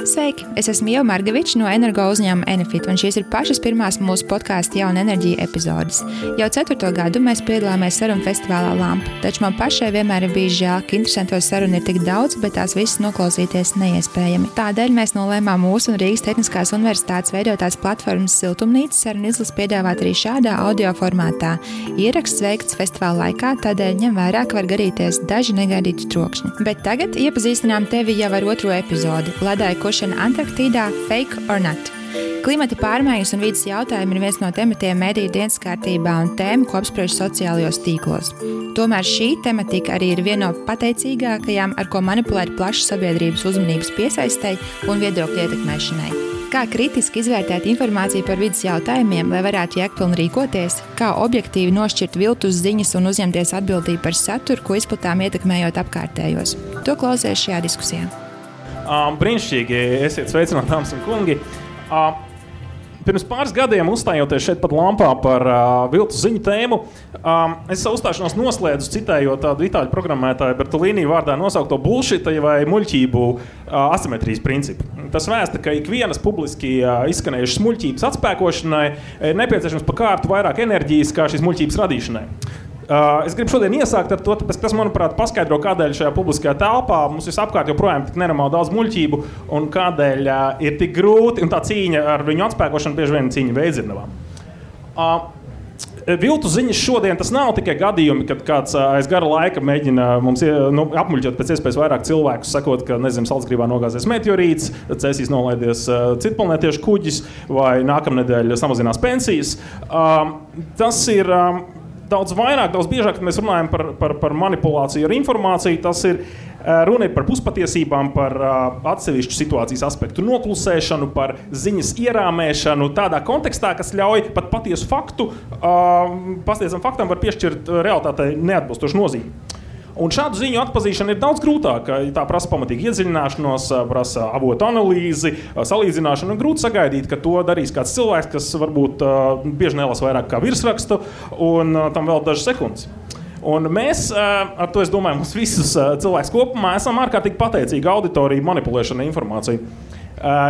Sveiki! Es esmu Ieva Margeviča no energo uzņēmuma Enefit, un šīs ir pašas pirmās mūsu podkāsta Jauna enerģija epizodes. Jau 4. gadu mēs piedalāmies sarunu festivālā Lampa, taču man pašai vienmēr ir bijis žēl, ka interesanto sarunu ir tik daudz, bet tās visas noklausīties neiespējami. Tādēļ mēs nolēmām mūsu un Rīgas Tehniskās universitātes veidotās platformas Siltumnīca sarunu izlases piedāvāt arī šādā audio formātā. Ieraksts veikts festivāla laikā, tādēļ ņem vērā, ka var garīties daži negaidīti trokšņi. Bet tagad iepazīstinām tevi jau ar 2. epizodi – ledāja kušana Antarktīdā – fake or not. Klimata pārmaiņas un vides jautājumi ir viens no tematiem mediju dienas kārtībā un tēma, ko apspriež sociālajos tīklos. Tomēr šī tematika arī ir viena no pateicīgākajām, ar ko manipulēt plašas sabiedrības uzmanības piesaistei un viedokļu ietekmēšanai. Kā kritiski izvērtēt informāciju par vides jautājumiem, lai varētu jēgpilni rīkoties, kā objektīvi nošķirt viltus ziņas un uzņemties atbildību par saturu, ko izplatām ietekmējot apkārtējos. To klausies šajā diskusijā. Brīnišķīgi, esiet sveicināti, dāmas un kungi. Pirms pāris gadiem uzstājoties šeit pat Lampā par viltus ziņu tēmu, es savu uzstāšanos noslēdzu citējot tādu itāļu programmētāju Bertolini vārdā nosaukto bullshita vai muļķību asimetrijas principu. Tas vēsta, ka ikvienas publiski izskanējušas muļķības atspēkošanai ir nepieciešams pa kārtu vairāk enerģijas kā šīs muļķības radīšanai. Es gribu šodien iesākt ar to, tāpēc, kas, manuprāt, paskaidro, kādēļ šajā publiskajā telpā mums visapkārt joprojām tik nenormāli daudz muļķību un kādēļ ir tik grūti, un tā cīņa ar viņu atspēkošanu bieži vien cīņa veidzirnavām. Viltu ziņas šodien tas nav tikai gadījumi, kad kāds aiz gara laika mēģina mums apmuļķot pēc iespējas vairāk cilvēkus, sakot, ka, nezinu, Salcgrīvā nogāzies meteorīts, Cēsīs nolaidies citplanētiešu kuģis vai nākamnedēļ samazinās pensijas. Tas ir daudz vairāk, daudz biežāk, kad mēs runājam par manipulāciju ar informāciju, tas ir runa par puspatiesībām, par atsevišķu situācijas aspektu noklusēšanu, par ziņas ierāmēšanu tādā kontekstā, kas ļauj pat patiesu faktu, pastiesam faktam var piešķirt realitātei neatbilstošu nozīmi. Un šādu ziņu atpazīšana ir daudz grūtāka. Tā prasa pamatīgu iedziļināšanos, prasa avotu analīzi, salīdzināšanu. Grūti sagaidīt, ka to darīs kāds cilvēks, kas varbūt bieži nelasa vairāk kā virsrakstu, un tam vēl dažas sekundes. Un mēs, ar to es domāju, mums visus cilvēks kopumā esam ārkārtīgi pateicīgi auditoriju manipulēšana informāciju.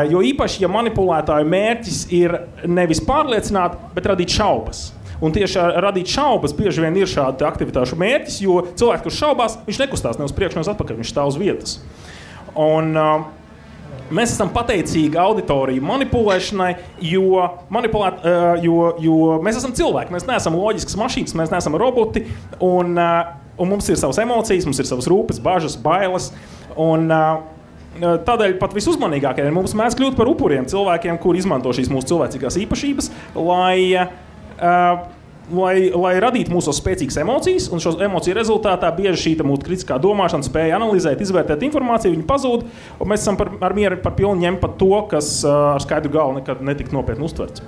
Jo īpaši, ja manipulētāju mērķis ir nevis pārliecināt, bet radīt šaubas. Un tieši radīt šaubas bieži vien ir šāda aktivitāšu mērķis, jo cilvēks, kurš šaubās, viņš nekustās ne uz priekšu, ne uz atpakaļ, viņš stāv uz vietas. Un mēs esam pateicīgi auditoriju manipulēšanai, jo mēs esam cilvēki, mēs neesam loģiskas mašīnas, mēs neesam roboti, un mums ir savas emocijas, mums ir savas rūpes, bažas, bailes, un tādēļ pat visuzmanīgākie mums mēdz kļūt par upuriem cilvēkiem, kuri izmanto šīs mūsu cilvēcīgās īpašības, lai radītu mūsos spēcīgas emocijas, un šo emociju rezultātā bieži šī mūsu kritiskā domāšana spēja analizēt, izvērtēt informāciju, viņa pazūd, un mēs esam ar mieru par pilnu ņemt pat to, kas ar skaidru galvu nekad netika nopietni uztverts.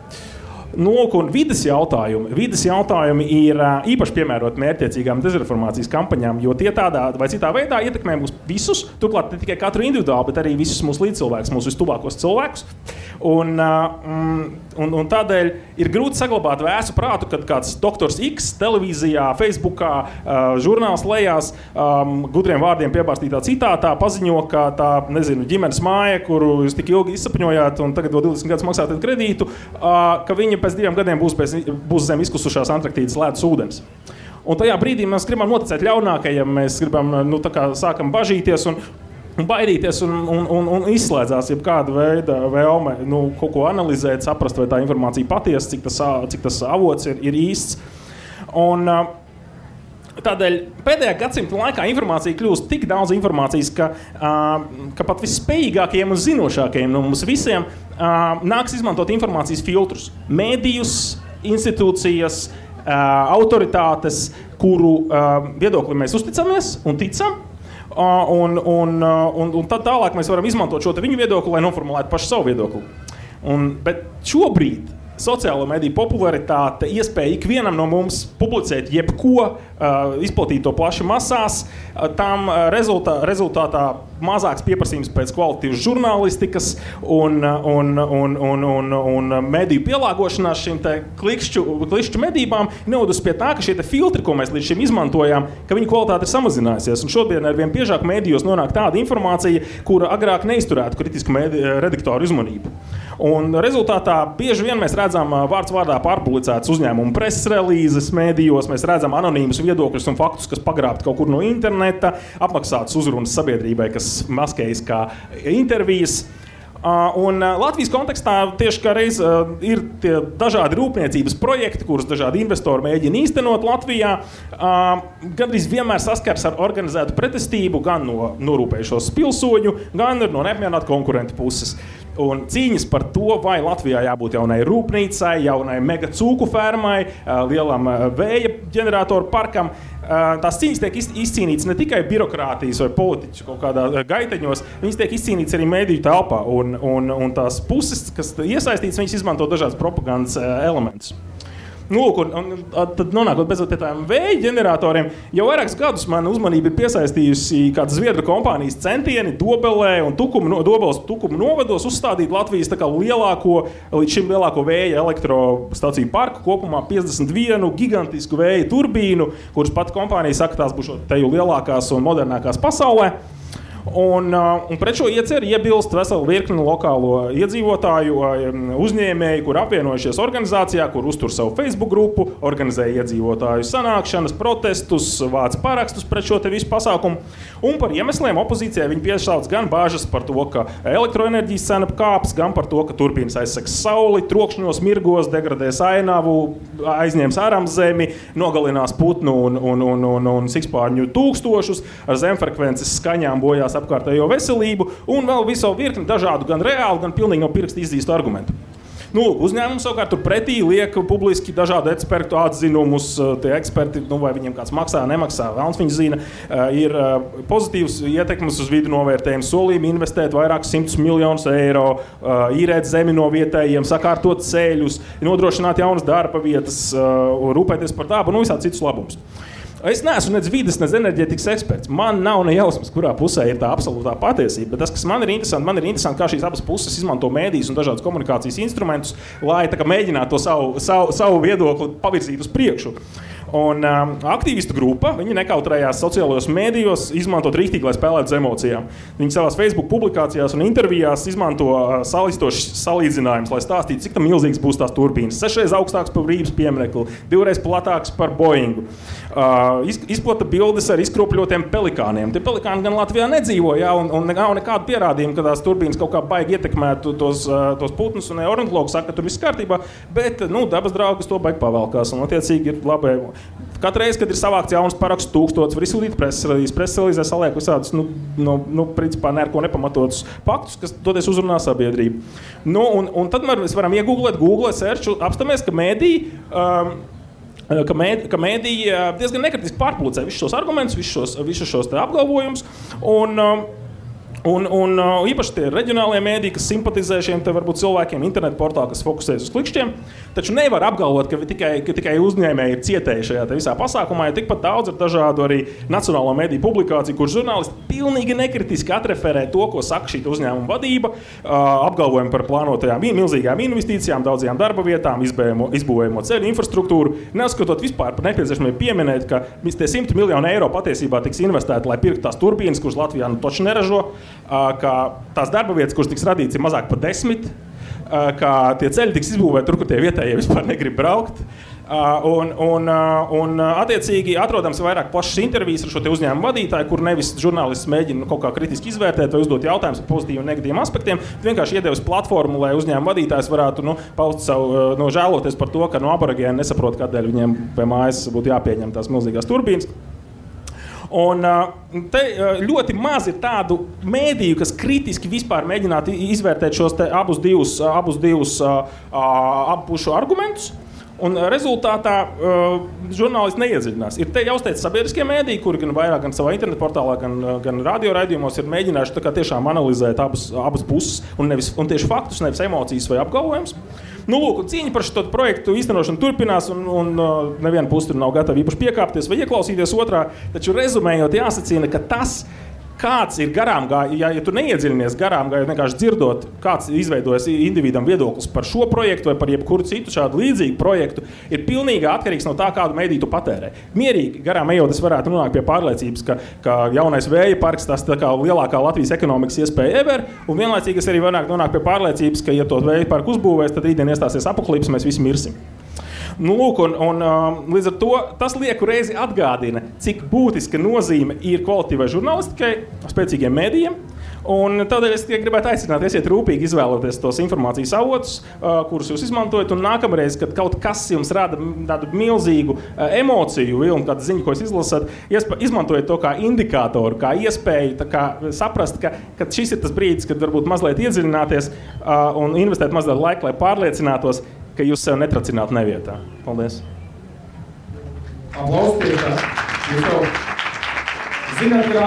Un vides jautājumi ir īpaši piemēroti mērķtiecīgām dezinformācijas kampaņām, jo tie tādā vai citā veidā ietekmē mūs visus, turklāt ne tikai katru individuāli, bet arī visus mūsu līdzcilvēkus, mūsu vistuvākos cilvēkus. Un tādēļ ir grūti saglabāt vēsu prātu, kad kāds doktors X televīzijā, Facebookā, žurnāls lejās, gudriem vārdiem piebārstītā citātā paziņo, ka tā, nezinu, ģimenes māja, kuru jūs tik ilgi izsapņojāt un tagad vēl 20 gadus maksājat kredītu, ka viņi pēc 2 gadiem būs zem izkusušās Antarktīdas ledus ūdens. Un tajā brīdī mēs gribam noticēt ļaunākajiem, mēs gribam, sākam bažīties un baidīties un izslēdzās jebkāda veida vēlme kaut ko analizēt, saprast, vai tā informācija patiesa, cik tas avots ir īsts. Un tādēļ pēdējā gadsimta laikā informācija kļūst tik daudz informācijas, ka pat visspējīgākajiem un zinošākajiem no mums visiem nāks izmantot informācijas filtrus. Mēdījus, institūcijas, autoritātes, kuru viedokli mēs uzticamies un ticam. Un tad tālāk mēs varam izmantot šo viņu viedokli, lai noformulētu pašu savu viedokli. Bet šobrīd sociālo mediju popularitāte, iespēja ikvienam no mums publicēt jebko, izplatīt to plaši masās, tam rezultātā mazāks pieprasījums pēc kvalitatīvas žurnālistikas un mediju pielāgošanās šīm te klikšķu medībām novadus pie tā, ka šie te filtri, ko mēs līdz šim izmantojām, ka viņu kvalitāte ir samazinājusies. Un šodien ar vien biežāk medijos nonāk tāda informācija, kura agrāk neizturētu kritisku redaktoru uzmanību. Un rezultātā bieži vien mēs redzam vārds vārdā pārpublicētas uzņēmumu preses relīzes mēdījos, mēs redzam anonīmus viedokļus un faktus, kas pagrābti kaut kur no interneta, apmaksātas uzrunas sabiedrībai, kas maskējas kā intervijas. Un Latvijas kontekstā tieši kā reiz ir tie dažādi rūpniecības projekti, kurus dažādi investori mēģina īstenot Latvijā. Gandrīz vienmēr saskars ar organizētu pretestību gan no norūpējušos pilsoņu, gan no neapmierinātu konkurentu puses. Un cīņas par to, vai Latvijā jābūt jaunai rūpnīcai, jaunai mega cūku fermai, lielam vēja ģeneratoru parkam. Tās cīņas tiek izcīnītas ne tikai birokrātijas vai politiķu kaut kādā gaiteņos, viņas tiek izcīnītas arī mediju telpā. Un tās puses, kas iesaistītas, viņas izmanto dažādas propagandas elementus. Nu, un tad nonākot beidzot pie tādiem vēja ģeneratoriem, jau vairākus gadus man uzmanība ir piesaistījusi kāda Zviedru kompānijas centieni Dobelē un Dobeles Tukuma novados uzstādīt Latvijas tā kā līdz šim lielāko vēja elektrostaciju parku, kopumā 51 gigantisku vēja turbīnu, kuras pat kompānija saka, tās būs teju lielākās un modernākās pasaulē. Un pret šo ieceri iebilst vesela virkne lokālo iedzīvotāju uzņēmēju, kur apvienojušies organizācijā, kur uztur savu Facebook grupu, organizē iedzīvotāju sanākšanas, protestus, vāc parakstus pret šo te visu pasākumu. Un par iemesliem opozīcijai viņi piesauc gan bāžas par to, ka elektroenerģijas cena kāps, gan par to, ka turbīnas aizsegs sauli, trokšņos, mirgos, degradēs ainavu, aizņems āramzemi, nogalinās putnu un sikspārņu tūkstošus, ar zemfrekvences skaņām bojās apkārtējo veselību un vēl visu virkni dažādu gan reālu, gan pilnīgi no pirksta izdīstu argumentu. Nu, uzņēmums savukārt tur pretī liek publiski dažādu ekspertu atzinumus, tie eksperti, vai viņiem kāds maksā, nemaksā, vēlns viņi zina, ir pozitīvs ietekmes uz vidu novērtējums, solījumi investēt vairākus 100 miljonus eiro, īrēt zemi no vietējiem, sakārtot ceļus, nodrošināt jaunas darba vietas, rūpēties par dabu un visādi citus labumus. Es neesmu nec vides, nec enerģētikas eksperts. Man nav ne jausmas, kurā pusē ir tā absolūtā patiesība. Bet tas, kas man ir interesanti, kā šīs abas puses izmanto mēdījus un dažādus komunikācijas instrumentus, lai tā kā mēģinātu to savu viedokli pavirzīt uz priekšu. Un aktīvistu grupa, viņi nekautrējās sociālajos mēdījos izmantot rīktīgi, lai spēlētu uz emocijām. Viņi savās Facebook publikācijās un intervijās izmanto salistošs salīdzinājums, lai stāstītu, cik tam milzīgs būs tās turbīnas. 6 reizes augstāks par Brības pieminekli, 2 reizes platāks par Boeingu. Izplata bildes ar izkropļotiem pelikāniem. Tie pelikāni gan Latvijā nedzīvo, un nav nekādu pierādījumu, ka tās turbīnas kaut kā baigi ietekmētu tos putnus, un ornitologi saka, ka tur viss kārtībā, bet dabas draugas to baigi pavelkās, un attiecīgi ir labi. Katru reizi, kad ir savākts jauns parakstu 1000, var izsūtīt preses relīzē saliek visādus, principā neko nepamatotus faktus, kas toties uzrunā sabiedrību. Un tad mēs varam iegooglēt, Google searchu, apstāmies, ka mēdī diezgan nekritiski pārpublicē visus šos argumentus, visus šos apgalvojumus, un īpaši tie reģionālie mēdī, kas simpatizē šiem te varbūt cilvēkiem, internetu portāli, kas fokusējas uz klikšķiem, taču nevar apgalvot, ka tikai uzņēmēji ir cietēji šajā te visā pasākumā, jo tikpat daudz ir dažādu arī nacionālo mēdīju publikāciju, kur žurnālisti pilnīgi nekritiski atreferē to, ko saka šī uzņēmuma vadība, apgalvojumi par plānotajām milzīgām investīcijām, daudzajām darba vietām, izbūvējamo ceļu infrastruktūru, neuzskatot vispār par nepieciešamību pieminēt, ka tie 100 miljoni eiro patiesībā tiks investēti, lai pirktu tās turbīnas, kuras Latvijā toči neražo, ka tās darba vietas, kuras tiks radīts, ir mazāk par 10, ka tie ceļi tiks izbūvēti tur, kur tie vietējie vispār negrib braukt. Un attiecīgi atrodams vairāk plašas intervijas ar šo te uzņēmumu vadītāju, kur nevis žurnālists mēģina kaut kā kritiski izvērtēt vai uzdot jautājumus par pozitīviem un negatīviem aspektiem, vienkārši iedevis platformu, lai uzņēmumu vadītājs varētu paust savu žēloties par to, ka aborigēni nesaprot, kādēļ viņiem pie mājas būtu jāpieņem tās milzīgās turbīnas. Un te ļoti maz ir tādu mēdīju, kas kritiski vispār mēģinātu izvērtēt šos te abus divus pušu argumentus. Un rezultātā žurnālisti neiedziļinās. Ir te jāuzteic sabiedriskie mēdīji, kuri gan vairāk, gan savā internetu portālā, gan radio raidījumos ir mēģinājuši tā kā tiešām analizēt abas puses un tieši faktus, nevis emocijas vai apgalvojumus. Nu, lūk, cīņa par šo projektu īstenošanu turpinās, un neviena puse tur nav gatava īpaši piekāpties vai ieklausīties otrā, taču rezumējot jāsacina, ka tas, kāds ir garām gājis, ja tu neiedziļinies garām gājot, vienkārši dzirdot, kāds izveidojas individam viedoklis par šo projektu vai par jebkuru citu šādu līdzīgu projektu, ir pilnīgi atkarīgs no tā, kādu mediju tu patērē. Mierīgi garām ejot, es varētu nonākt pie pārliecības, ka jaunais vēja parks tas tā kā lielākā Latvijas ekonomikas iespēja ever, un vienlaicīgi es arī varētu nonākt pie pārliecības, ka, ja to vēja parku uzbūvēs, tad rītdien iestāsies apokalips, mēs visi mirsim. Nu, lūk, un līdz ar to tas lieku reizi atgādina, cik būtiska nozīme ir kvalitīvai žurnālistikai, spēcīgiem mēdījiem. Un tādēļ es gribētu aicināt, esiet rūpīgi izvēloties tos informācijas avotus, kurus jūs izmantojat, un nākamreiz, kad kaut kas jums rada tādu milzīgu emociju vilnu, kādu ziņu, ko jūs izlasat, izmantojiet to kā indikātoru, kā iespēju, tā kā saprast, ka šis ir tas brīdis, kad varbūt mazliet iedziļināties un investēt mazliet laika, lai pārliecinātos, ka jūs sev netracinātu nevietā. Paldies. Aplaus pie tā. Jūs jau zināt, ka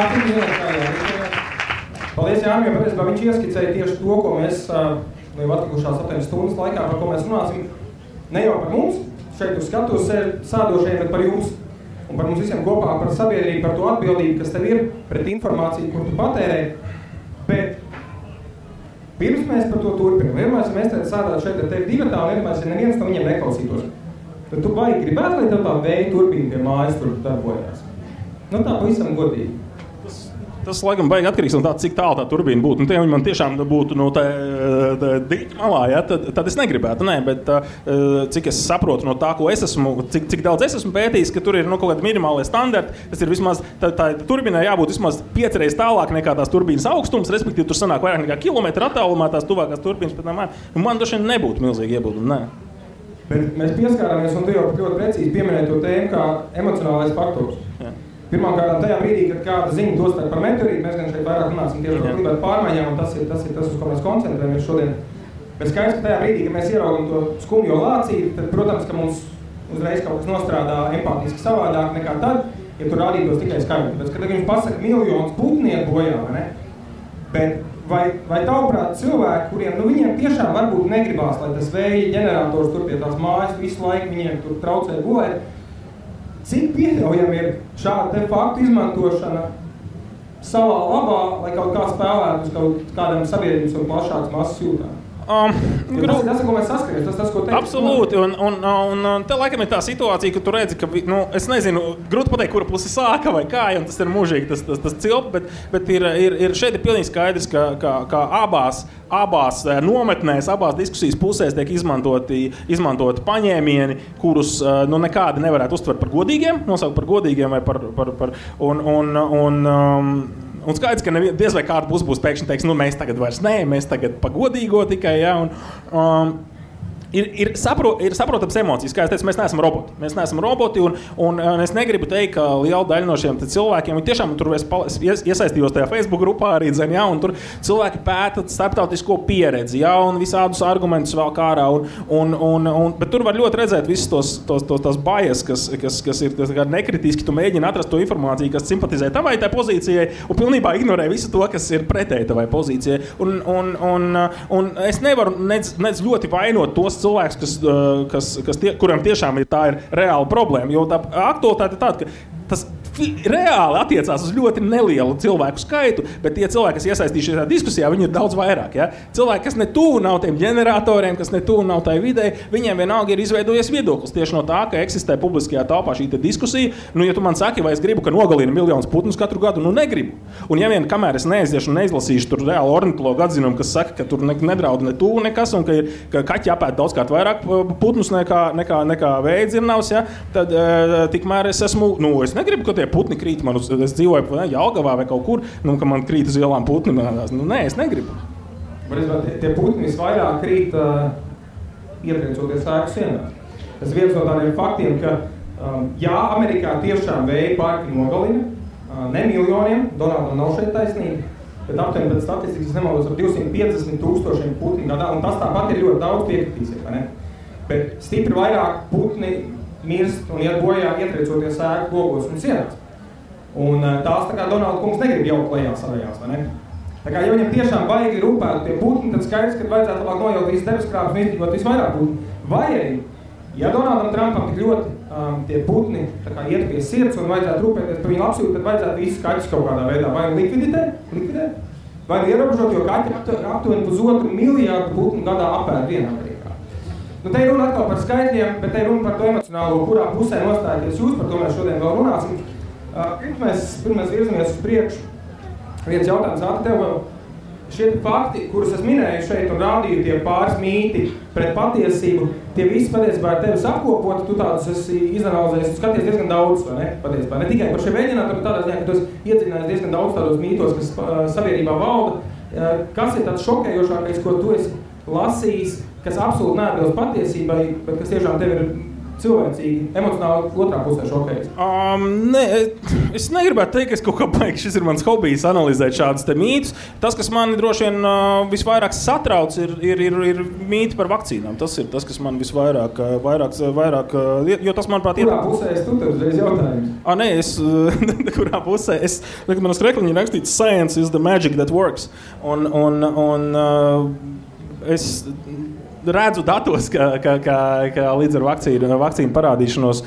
paldies Jānim, jo patiesībā viņš ieskicēja tieši to, ko mēs jau atlikušās 8 stundas laikā, par ko mēs runāsim. Ne jau par mums, šeit uz skatuves sēdošajiem, bet par jums. Un par mums visiem kopā, par sabiedrību, par to atbildību, kas tev ir pret informāciju, kur tu patērē. Bet pirms mēs par to turpinām, vienmēr mēs sēdētu šeit ar tevi divatā, un vienmēr neviens no viņiem neklausītos. Tad tu baigi gribētu, lai tev tā vēja turbīna pie mājas tur darbojās. Nu tā pavisam godīgi. Tas, laikam, baigi atkarīgs no tā, cik tālu tā turbīna būtu. Ja viņi man tiešām būtu no tā dīķa malā, ja, tad es negribētu. Nē, bet cik es saprotu no tā, ko es esmu, cik daudz es esmu pētījis, ka tur ir kaut kādi minimālie standarti, tas ir vismaz, tā turbīnai jābūt vismaz 5 reizes tālāk nekā tās turbīnas augstums, respektīvi tur sanāk vairāk nekā kilometru attālumā tās tuvākās turbīnas, bet man droši vien nebūtu milzīgi iebildumi, nē. Bet mēs pieskārāmies, un tu jau ļoti precīzi pieminēji to tēmu kā emocionālais faktors. Jā. Pirmkārt, tajā brīdī, kad kāda ziņa dostāk par meteorītu, mēs gan šeit vairāk runāsim tieši par klimatu pārmaiņām, un tas ir tas, uz ko mēs koncentrējamies šodien. Bet skaidrs, ka tajā brīdī, kad mēs ieraugam to skumjo lācīti, tad, protams, ka mums uzreiz kaut kas nostrādā empātiski savādāk nekā tad, ja tur rādītos tikai skaidri. Tāpēc, kad jums pasaka miljonus putnieku bojā, vai ne? Bet vai tavuprāt cilvēki, kuriem viņiem tiešām varbūt negribās, lai tas vēja ģenerators tur pie tās mājas visu laiku viņiem tur traucē gulēt, cik pieļaujami ir šāda te faktu izmantošana savā labā, lai kaut kā spēlētu uz kaut kādam sabiedrības un plašāks masas jūtām? Tas, ko mēs saskaramies, tas, ko teikt. Absolūti, un te laikam ir tā situācija, ka tu redzi, ka, es nezinu, grūti pateikt, kura pusi sāka vai kā, un tas ir mūžīgi, tas cilp, bet šeit ir pilnīgi skaidrs, ka abās nometnēs, abās diskusijas pusēs tiek izmantoti paņēmieni, kurus nekādi nevarētu uztvert par godīgiem, nosaukt par godīgiem vai un skaidrs, ka diez vai kāda būs pēkšņi teiks, mēs tagad vairs nē, mēs tagad pagodīgo tikai, ja, Ir saprotams emocijas, kā es teicu, mēs neesam roboti. Mēs neesam roboti, un es negribu teikt, ka liela daļa no šiem cilvēkiem, viņi tiešām tur iesaistījos tajā Facebook grupā arī, ja, un tur cilvēki pēta starptautisko pieredzi, ja, un visādus argumentus vēl kārā, bet tur var ļoti redzēt visus tos bias, kas ir nekritiski, tu mēģini atrast to informāciju, kas simpatizē tavai tai pozīcijai, un pilnībā ignorē visu to, kas ir pretēji tavai pozīcijai. Un es nevaru nec ļoti vainot tos cilvēks, kuriem tiešām tā ir reāla problēma, jo tā aktualitāte ir tāda, ka tas reāli attiecās uz ļoti nelielu cilvēku skaitu, bet tie cilvēki, kas iesaistījušies šajā diskusijā, viņi ir daudz vairāk. Ja? Cilvēki, kas ne tuvu nav tiem ģeneratoriem, kas ne tuvu nav tai videi, viņiem vienalga ir izveidojies viedoklis tieši no tā, ka eksistē publiskajā telpā šī diskusija. Ja tu man saki, vai es gribu, ka nogalina miljonus putnus katru gadu, negribu. Un ja vien kamēr es neaiziešu un neizlasīšu tur reāli ornitologu atzinumu, kas saka, ka tur nedraud ne tuvu nekas un ka kaķi apēd daudzkārt vairāk putnus nekā vējdzirnavs, ja? Tad tikmēr es esmu, es negribu, ka tie putni krīt man es dzīvoju Jelgavā vai kaut kur, ka man krīt uz ielām putni. Nē, es negribu. Tie putni visvairāk krīt ietriecoties ēku sienās. Tas viens no tādiem faktiem, ka Amerikā tiešām vēja parki nogalina, ne miljoniem, Donaldam nav šeit taisnība, bet aptuveni pēc statistikas nemaldos ap 250,000 putni gadā, un tas tāpat ir ļoti daudz piekritīsies, vai ne? bet stipri vairāk putni mirst un iet bojā ietriecoties ēku logos un sienās. Un tās tā kā Donalda kungs negrib jaukt lejā savējās, vai ne? Tā kā, ja viņam tiešām baigi rūpēt tie putni, tad skaidrs, ka vajadzētu labāk nojaukt visas debeskrāpes un izdzīvot visvairāk putni. Vai arī, ja Donaldam Trumpam tik ļoti tie putni tā kā iet pie sirds un vajadzētu rūpēties par viņu labsību, tad vajadzētu visus kaķus kaut kādā veidā vai likvidēt, vai ierobežot, jo kaķi aptuveni 1,5 miljārdu putnu gadā apēd vienā Amerikā. Nu, te ir runa atkal par skaitļiem, bet te ir runa par to emocionālo, kurā pusē nostājaties jūs, par to mēs šodien vēl runāsim. Pirms virzamies uz priekšu, viens jautājums ātri tev vēl. Šie fakti, kurus es minēju šeit un rādīju, tie pāris mīti pret patiesību, tie visi patiesībā ir tevis apkopoti, tu tādus esi izanalizējis, tu skaties diezgan daudz, vai ne? Patiesībā. Ne tikai par šiem mēģinātiem, tādā ziņā, ka tu esi iedzinājis diezgan daudz tādos mītos, kas sabiedrībā valda. Kas ir tāds šokējošākais, ko tu esi lasījis, kas absolūti neatbilst patiesībai, bet kas tiešām tev ir cilvēcīgi, emocionāli otrā pusē šokējas? Es negribētu teikt, ka es kaut kā baigi, šis ir mans hobijs analizēt šādus te mītus. Tas, kas mani droši vien visvairāk satrauc, ir mīti par vakcīnām. Tas ir tas, kas man visvairāk, jo tas, manuprāt, Kurā pusē es tu tev uzreiz jautājums? Kurā pusē? Man uz krekliņa ir rakstīts Science is the magic that works. Es redzu datos, ka līdz ar vakcīnu parādīšanos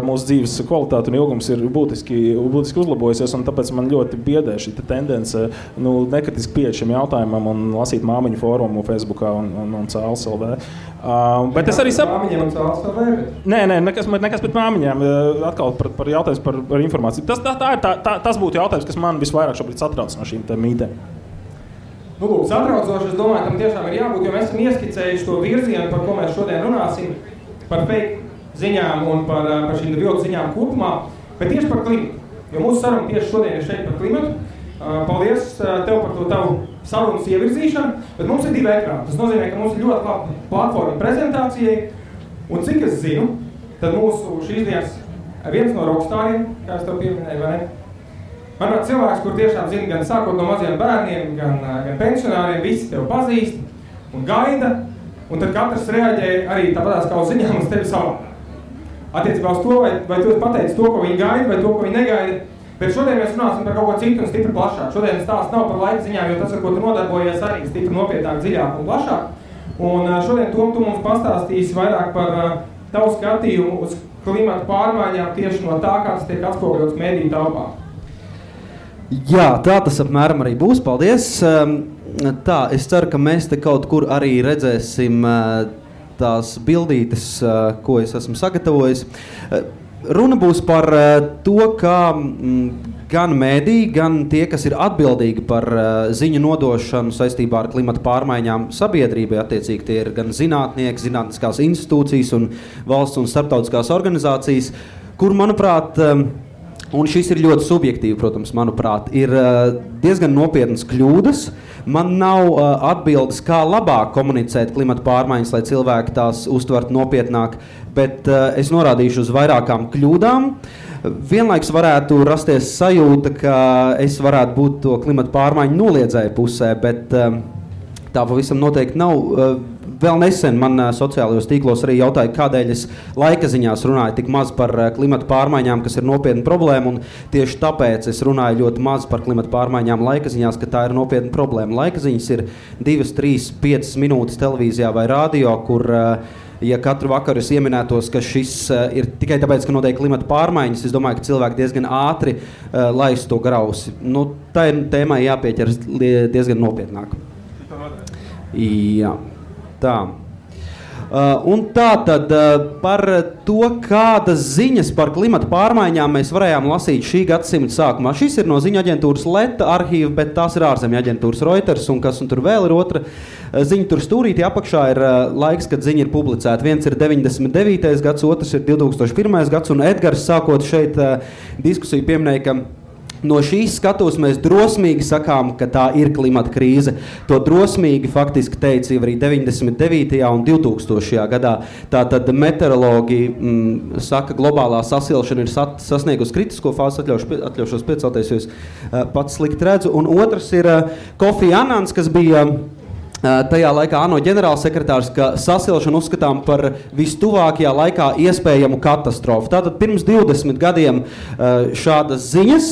mūsu dzīves kvalitāte un ilgums ir būtiski uzlabojusies, un tāpēc man ļoti biedē šī tendence nekritiski pieeja šim jautājumam un lasīt māmiņu fórumu Facebookā un Cēles LV. Bet es arī Māmiņiem un Cēles LV? Nē, nekas pret māmiņām. Atkal par jautājums par informāciju. Tas būtu jautājums, kas man visvairāk šobrīd satrauc no šīm mītēm. Nu, lūk, satraucoši, es domāju, tam tiešām ir jābūt, jo mēs esam ieskicējuši to virzienu, par ko mēs šodien runāsim, par fake ziņām un par šīm viltu ziņām kopumā, bet tieši par klimatu. Jo mūsu saruna tieši šodien ir šeit par klimatu. Paldies tev par to tavu sarunas ievirzīšanu, bet mums ir 2 ekrāni. Tas nozīmē, ka mums ir ļoti laba platforma prezentācijai, un cik es zinu, tad mūsu šīs dienas viens no rockstāriem, kā es tev pieminēju, vai ne? Manuprāt, cilvēks, kur tiešām zina gan sākot no maziem bērniem, gan pensionāriem, visi tev pazīst un gaida, un tad katrs reaģē arī tāpatās kā uz ziņām uz tevi savā. Attiecībā uz to, vai tu esi pateicis to, ko viņi gaida, vai to, ko viņi negaida, bet šodien mēs runāsim par kaut ko citu un stipri plašāk. Šodien stāsts nav par laika ziņām, jo tas, ar ko tu nodarbojies, arī stipri nopietnāk, dziļāk un plašāk. Un šodien tu mums pastāstīsi vairāk par tavu skatījumu uz klimatu pārmaiņām tieši no tā, kā tas tiek atspoguļots mediju telpā. Jā, tā tas apmēram arī būs. Paldies. Tā, es ceru, ka mēs te kaut kur arī redzēsim tās bildītes, ko es esmu sagatavojis. Runa būs par to, kā gan mēdī, gan tie, kas ir atbildīgi par ziņu nodošanu saistībā ar klimata pārmaiņām sabiedrībai, attiecīgi tie ir gan zinātnieki, zinātniskās institūcijas un valsts un starptautiskās organizācijas, kur, manuprāt, un šis ir ļoti subjektīvi, protams, manuprāt, ir diezgan nopietnas kļūdas. Man nav atbildes, kā labāk komunicēt klimata pārmaiņas, lai cilvēki tās uztvertu nopietnāk, bet es norādīšu uz vairākām kļūdām. Vienlaiks varētu rasties sajūta, ka es varētu būt to klimata pārmaiņu noliedzēju pusē, bet tā pavisam noteikti nav. Vēl nesen man sociālajos tīklos arī jautāja, kādēļ es laika ziņās runāju tik maz par klimata pārmaiņām, kas ir nopietna problēma, un tieši tāpēc es runāju ļoti maz par klimata pārmaiņām laika ziņās, ka tā ir nopietna problēma. Laika ziņas ir 2, 3, 5 minūtes televīzijā vai radio, kur, ja katru vakaru es ieminētos, ka šis ir tikai tāpēc, ka notiek klimata pārmaiņas, es domāju, ka cilvēki diezgan ātri laiz to grausi. Nu, tā ir tēmai jāpieķeras diezgan nopietnāk. Jā. Tā. Un tā tad par to, kādas ziņas par klimata pārmaiņām mēs varējām lasīt šī gadsimta sākumā. Šis ir no ziņu aģentūras Leta arhīva, bet tās ir ārzemju aģentūras Reuters, un kas un tur vēl ir otra ziņa. Tur stūrītī apakšā ir laiks, kad ziņa ir publicēta. Viens ir 99. gads, otrs ir 2001. gads, un Edgars sākot šeit diskusiju pieminēja, ka no šīs skatos mēs drosmīgi sakām, ka tā ir klimata krīze. To drosmīgi faktiski teica arī 99. un 2000. gadā. Tātad meteorologi saka, globālā sasilšana ir sasniegusi kritisko fāzi, atļaušos piecelties, jo es pats slikti redzu. Un otrs ir Kofi Anans, kas bija tajā laikā ANO ģenerālsekretārs, ka sasilšanu uzskatām par vistuvākajā laikā iespējamu katastrofu. Tātad pirms 20 gadiem šādas ziņas,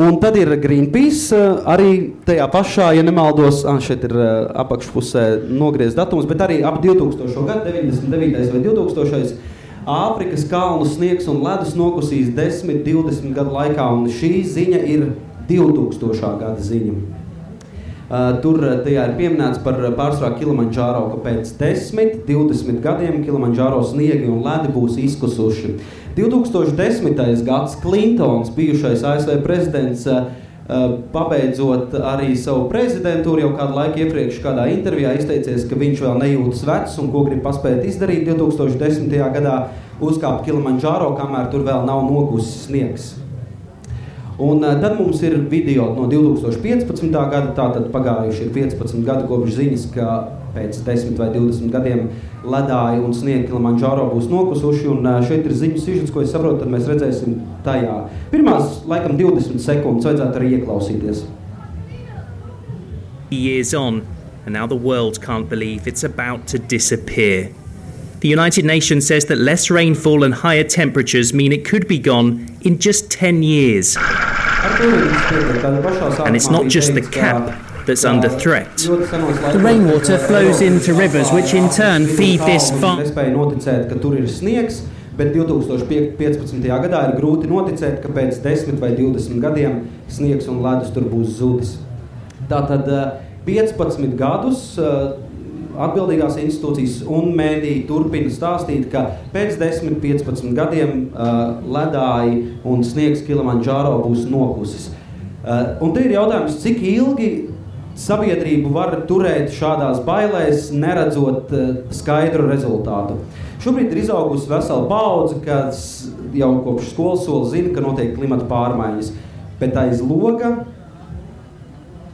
un tad ir Greenpeace, arī tajā pašā, ja nemaldos, šeit ir apakšpusē nogriezts datums, bet arī ap 2000. gadu, 99. vai 2000. Āfrikas kalnu sniegs un ledus nokusīs 10-20 gadu laikā, un šī ziņa ir 2000. Gada ziņa. Tur tajā ir pieminēts par pārsvarā Kilimandžāro, ka pēc 10-20 gadiem Kilimandžāro sniegi un ledi būs izkusuši. 2010. gads Klintons, bijušais ASV prezidents, pabeidzot arī savu prezidentūru, jau kādu laiku iepriekš kādā intervijā izteicies, ka viņš vēl nejūtas vecs un ko grib paspēt izdarīt 2010. gadā, uzkāpt Kilimandžāro, kamēr tur vēl nav nokusis sniegs. Un tad mums ir video no 2015. gada, tātad pagājuši ir 15 gadi kopš ziņas, ka pēc 10 vai 20 gadiem ledāji un sniegi Kilimandžāro būs nokusuši, un šeit ir ziņu sižets, ko es saprotu, tad mēs redzēsim tajā. Pirmās, laikam, 20 sekundes vajadzētu arī ieklausīties. Years on, and now the world can't believe it's about to disappear. The United Nations says that less rainfall and higher temperatures mean it could be gone in just 10 years. And it's not just the cap that's under threat. The rainwater flows into rivers, which in turn feed this farm. Nespēja noticēt, ka tur ir sniegs, bet 2015. gadā ir grūti noticēt, ka pēc 10 vai 20 gadiem sniegs un ledus tur būs zudis. Tātad 15 gadus atbildīgās institūcijas un mēdīji turpina stāstīt, ka pēc 10-15 gadiem ledāji un sniegs Kilimandžāro būs nokusis. Un te ir jautājums, cik ilgi sabiedrību var turēt šādās bailēs, neredzot skaidru rezultātu. Šobrīd ir izaugusi vesela paudze, kas jau kopš skolas sola zina, ka notiek klimata pārmaiņas, bet aiz loga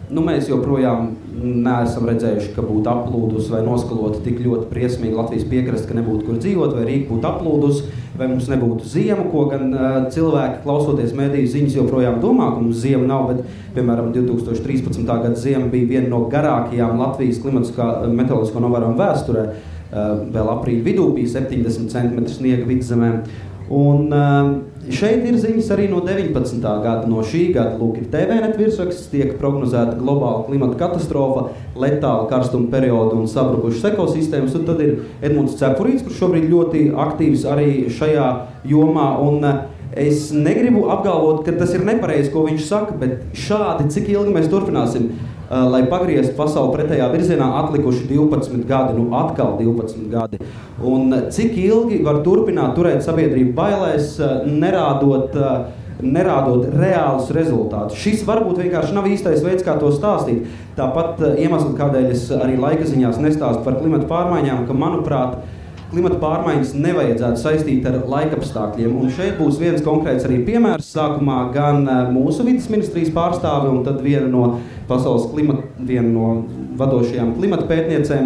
mēs joprojām neesam redzējuši, ka būtu aplūdus vai noskalota tik ļoti briesmīgi Latvijas piekraste, ka nebūtu kur dzīvot, vai Rīga būtu aplūdus, vai mums nebūtu ziema, ko gan cilvēki, klausoties mēdīju ziņas, joprojām domā, ka mums ziema nav, bet, piemēram, 2013. Gada ziema bija viena no garākajām Latvijas meteoroloģisko novērojumu vēsturē. Vēl aprīļa vidū bija 70 cm sniega vidzemē. Un šeit ir ziņas arī no 19. gada, no šī gada. Lūk, ir TVNet virsraksts, tiek prognozēta globāla klimata katastrofa, letāla karstuma perioda un sabrukušas ekosistēmas. Un tad ir Edmunds Cepurīts, kurš šobrīd ļoti aktīvs arī šajā jomā. Un es negribu apgalvot, ka tas ir nepareizi, ko viņš saka, bet šādi, cik ilgi mēs turpināsim, lai pagrieztu pasauli pretējā virzienā, atlikuši 12 gadi, atkal 12 gadi. Un cik ilgi var turpināt turēt sabiedrību bailēs, nerādot reālus rezultātus. Šis varbūt vienkārši nav īstais veids, kā to stāstīt. Tāpat iemesli, kādēļ es arī laika ziņās nestāstu par klimata pārmaiņām, ka, manuprāt, klimata pārmaiņas nevajadzētu saistīt ar laikapstākļiem. Un šeit būs viens konkrēts arī piemērs. Sākumā gan mūsu vides ministrijas pārstāve un tad viena no vadošajām klimata pētniecēm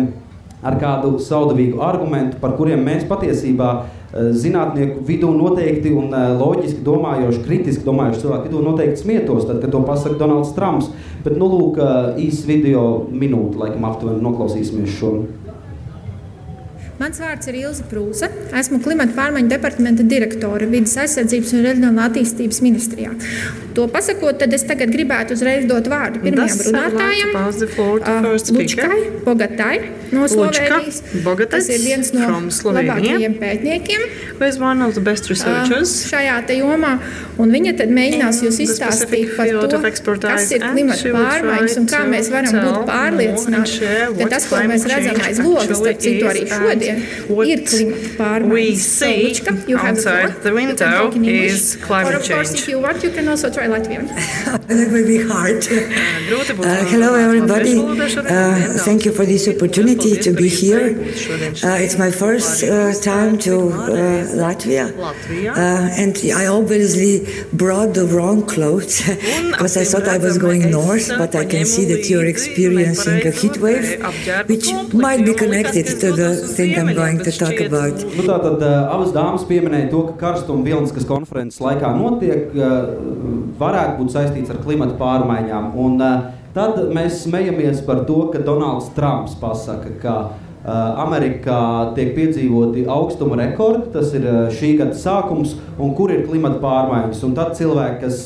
ar kādu saudabīgu argumentu, par kuriem mēs patiesībā zinātnieku vidū noteikti un loģiski domājoši, kritiski domājoši cilvēku vidū noteikti smietos, tad, kad to pasaka Donalds Trumps. Bet, lūk, īsts video minūte, laikam aptuveni noklausīsimies šo. Mans vārds ir Ilze Prūse. Esmu klimata pārmaiņu departamenta direktore Vides aizsardzības un reģionālā attīstības ministrijā. To pasakot, tad es tagad gribētu uzreiz dot vārdu pirmajam runātājam, Lučkai Bogatai no Slovēnijas. Tas ir viens no labākajiem pētniekiem šajā te jomā. Un viņa tad mēģinās jūs izstāstīt par to, kas ir klimata pārmaiņas un kā mēs varam būt pārliecināti, ka tas, ko mēs redzam aiz logas, starp citu arī šodien, ir klimata pārmaiņas. So, Lučka, you have the window is climate change. Or of course, if you want, you can also try Latvian. That may be hard. Hello, everybody. Thank you for this opportunity to be here. It's my first time to Latvia. And I obviously brought the wrong clothes because I thought I was going north, but I can see that you're experiencing a heat wave, which might be connected to the thing I'm going to talk about. Tātad abas dāmas pieminēja to, ka karstuma Vilniskas konferences laikā notiek, varētu būt saistīts ar klimata pārmaiņām. Un Tad mēs smejamies par to, ka Donalds Trumps pasaka, ka Amerikā tiek piedzīvoti augstuma rekordi, tas ir šī gada sākums, un kur ir klimata pārmaiņas. Un tad cilvēki, kas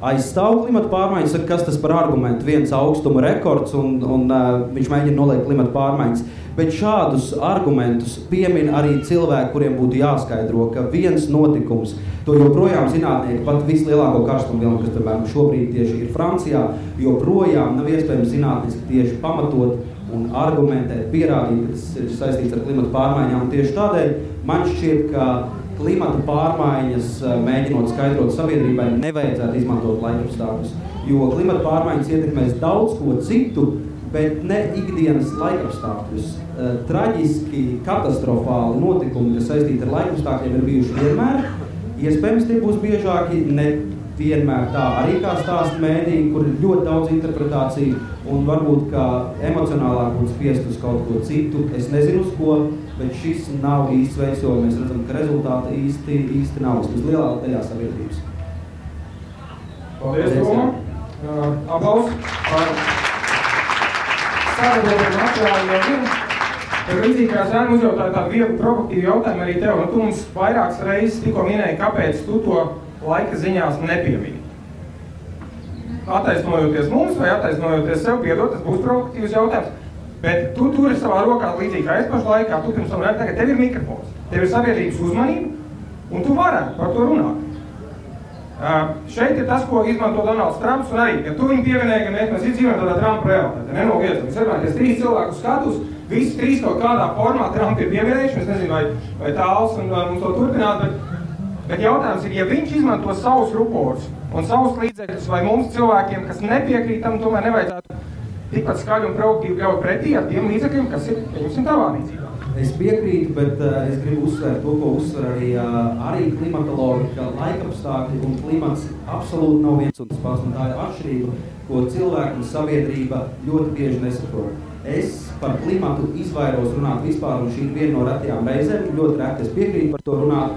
aizstāv klimata pārmaiņas, saka, kas tas par argumentu, viens augstuma rekords, un viņš mēģina noliekt klimata pārmaiņas. Bet šādus argumentus piemin arī cilvēki, kuriem būtu jāskaidro, ka viens notikums, to joprojām zinātnieki, pat vislielāko karstumu vilnu, kas piemēram šobrīd tieši ir Francijā, joprojām nav iespējams zinātniski tieši pamatot un argumentēt, pierādīt, ka tas ir saistīts ar klimata pārmaiņām. Un tieši tādēļ man šķiet, ka klimata pārmaiņas, mēģinot skaidrot sabiedrībai, nevajadzētu izmantot laikapstākļus, jo klimata pārmaiņas ietekmēs daudz ko citu, bet ne ikdienas laikapstākļus. Traģiski, katastrofāli notikumi, kas saistīti ar laikapstākļiem, ir bijuši vienmēr. Iespējams, tie būs biežāki, ne vienmēr tā arī kā stāsta mēdī, kur ir ļoti daudz interpretāciju, un varbūt kā emocionālāk būtu spiest uz kaut ko citu. Es nezinu uz ko, bet šis nav īsts veids, jo mēs redzam, ka rezultāti īsti nav uz lielākā daļā sabiedrības. Paldies, Toma. Aplaus par sagatavotu materiālu jau vienu. Tad līdzīgi kā Zēna uzjautāja tādu vieglu provokatīvu jautājumu arī tev, un tu mums vairākas reizes tikko minēji, kāpēc tu to laika ziņās nepiemini. Attaisnojoties mums vai attaisnojoties sev, piedod, tas būs provokatīvs jautājums, bet tu turi savā rokā līdzīgi kā es pašu laikā, tu pirms tam tagad tev ir mikrofons, tev ir sabiedrības uzmanība, un tu varētu par to runāt. Šeit ir tas, ko izmanto Donalds Trumps, un arī, ja tu viņu pievienēji, ka mēs dzīvojam tādā Trumpa realitātē, nenoliedzam. Es domāju, ka 3 cilvēku skatus, visi 3 kaut kādā formā Trumpa ir pievienējuši, es nezinu, vai tāls un mums to turpināt, bet jautājums ir, ja viņš izmanto savus ruporus un savus līdzekļus, vai mums cilvēkiem, kas nepiekrīt tam, tomēr nevajadzētu tikpat skaļi un provokatīvi ļaut pretī ar tiem līdzekļiem, kas ir, pieņemsim, tavā rīcībā. Es piekrītu, bet es gribu uzsvērt to, ko uzsver arī klimatologi, ka laikapstākļi un klimats absolūti nav viens un tas pats, un tā ir atšķirība, ko cilvēki un sabiedrība ļoti bieži nesaprot. Es par klimatu izvairos runāt vispār, un šī ir viena no retajām reizēm, ļoti reti es piekrītu par to runāt,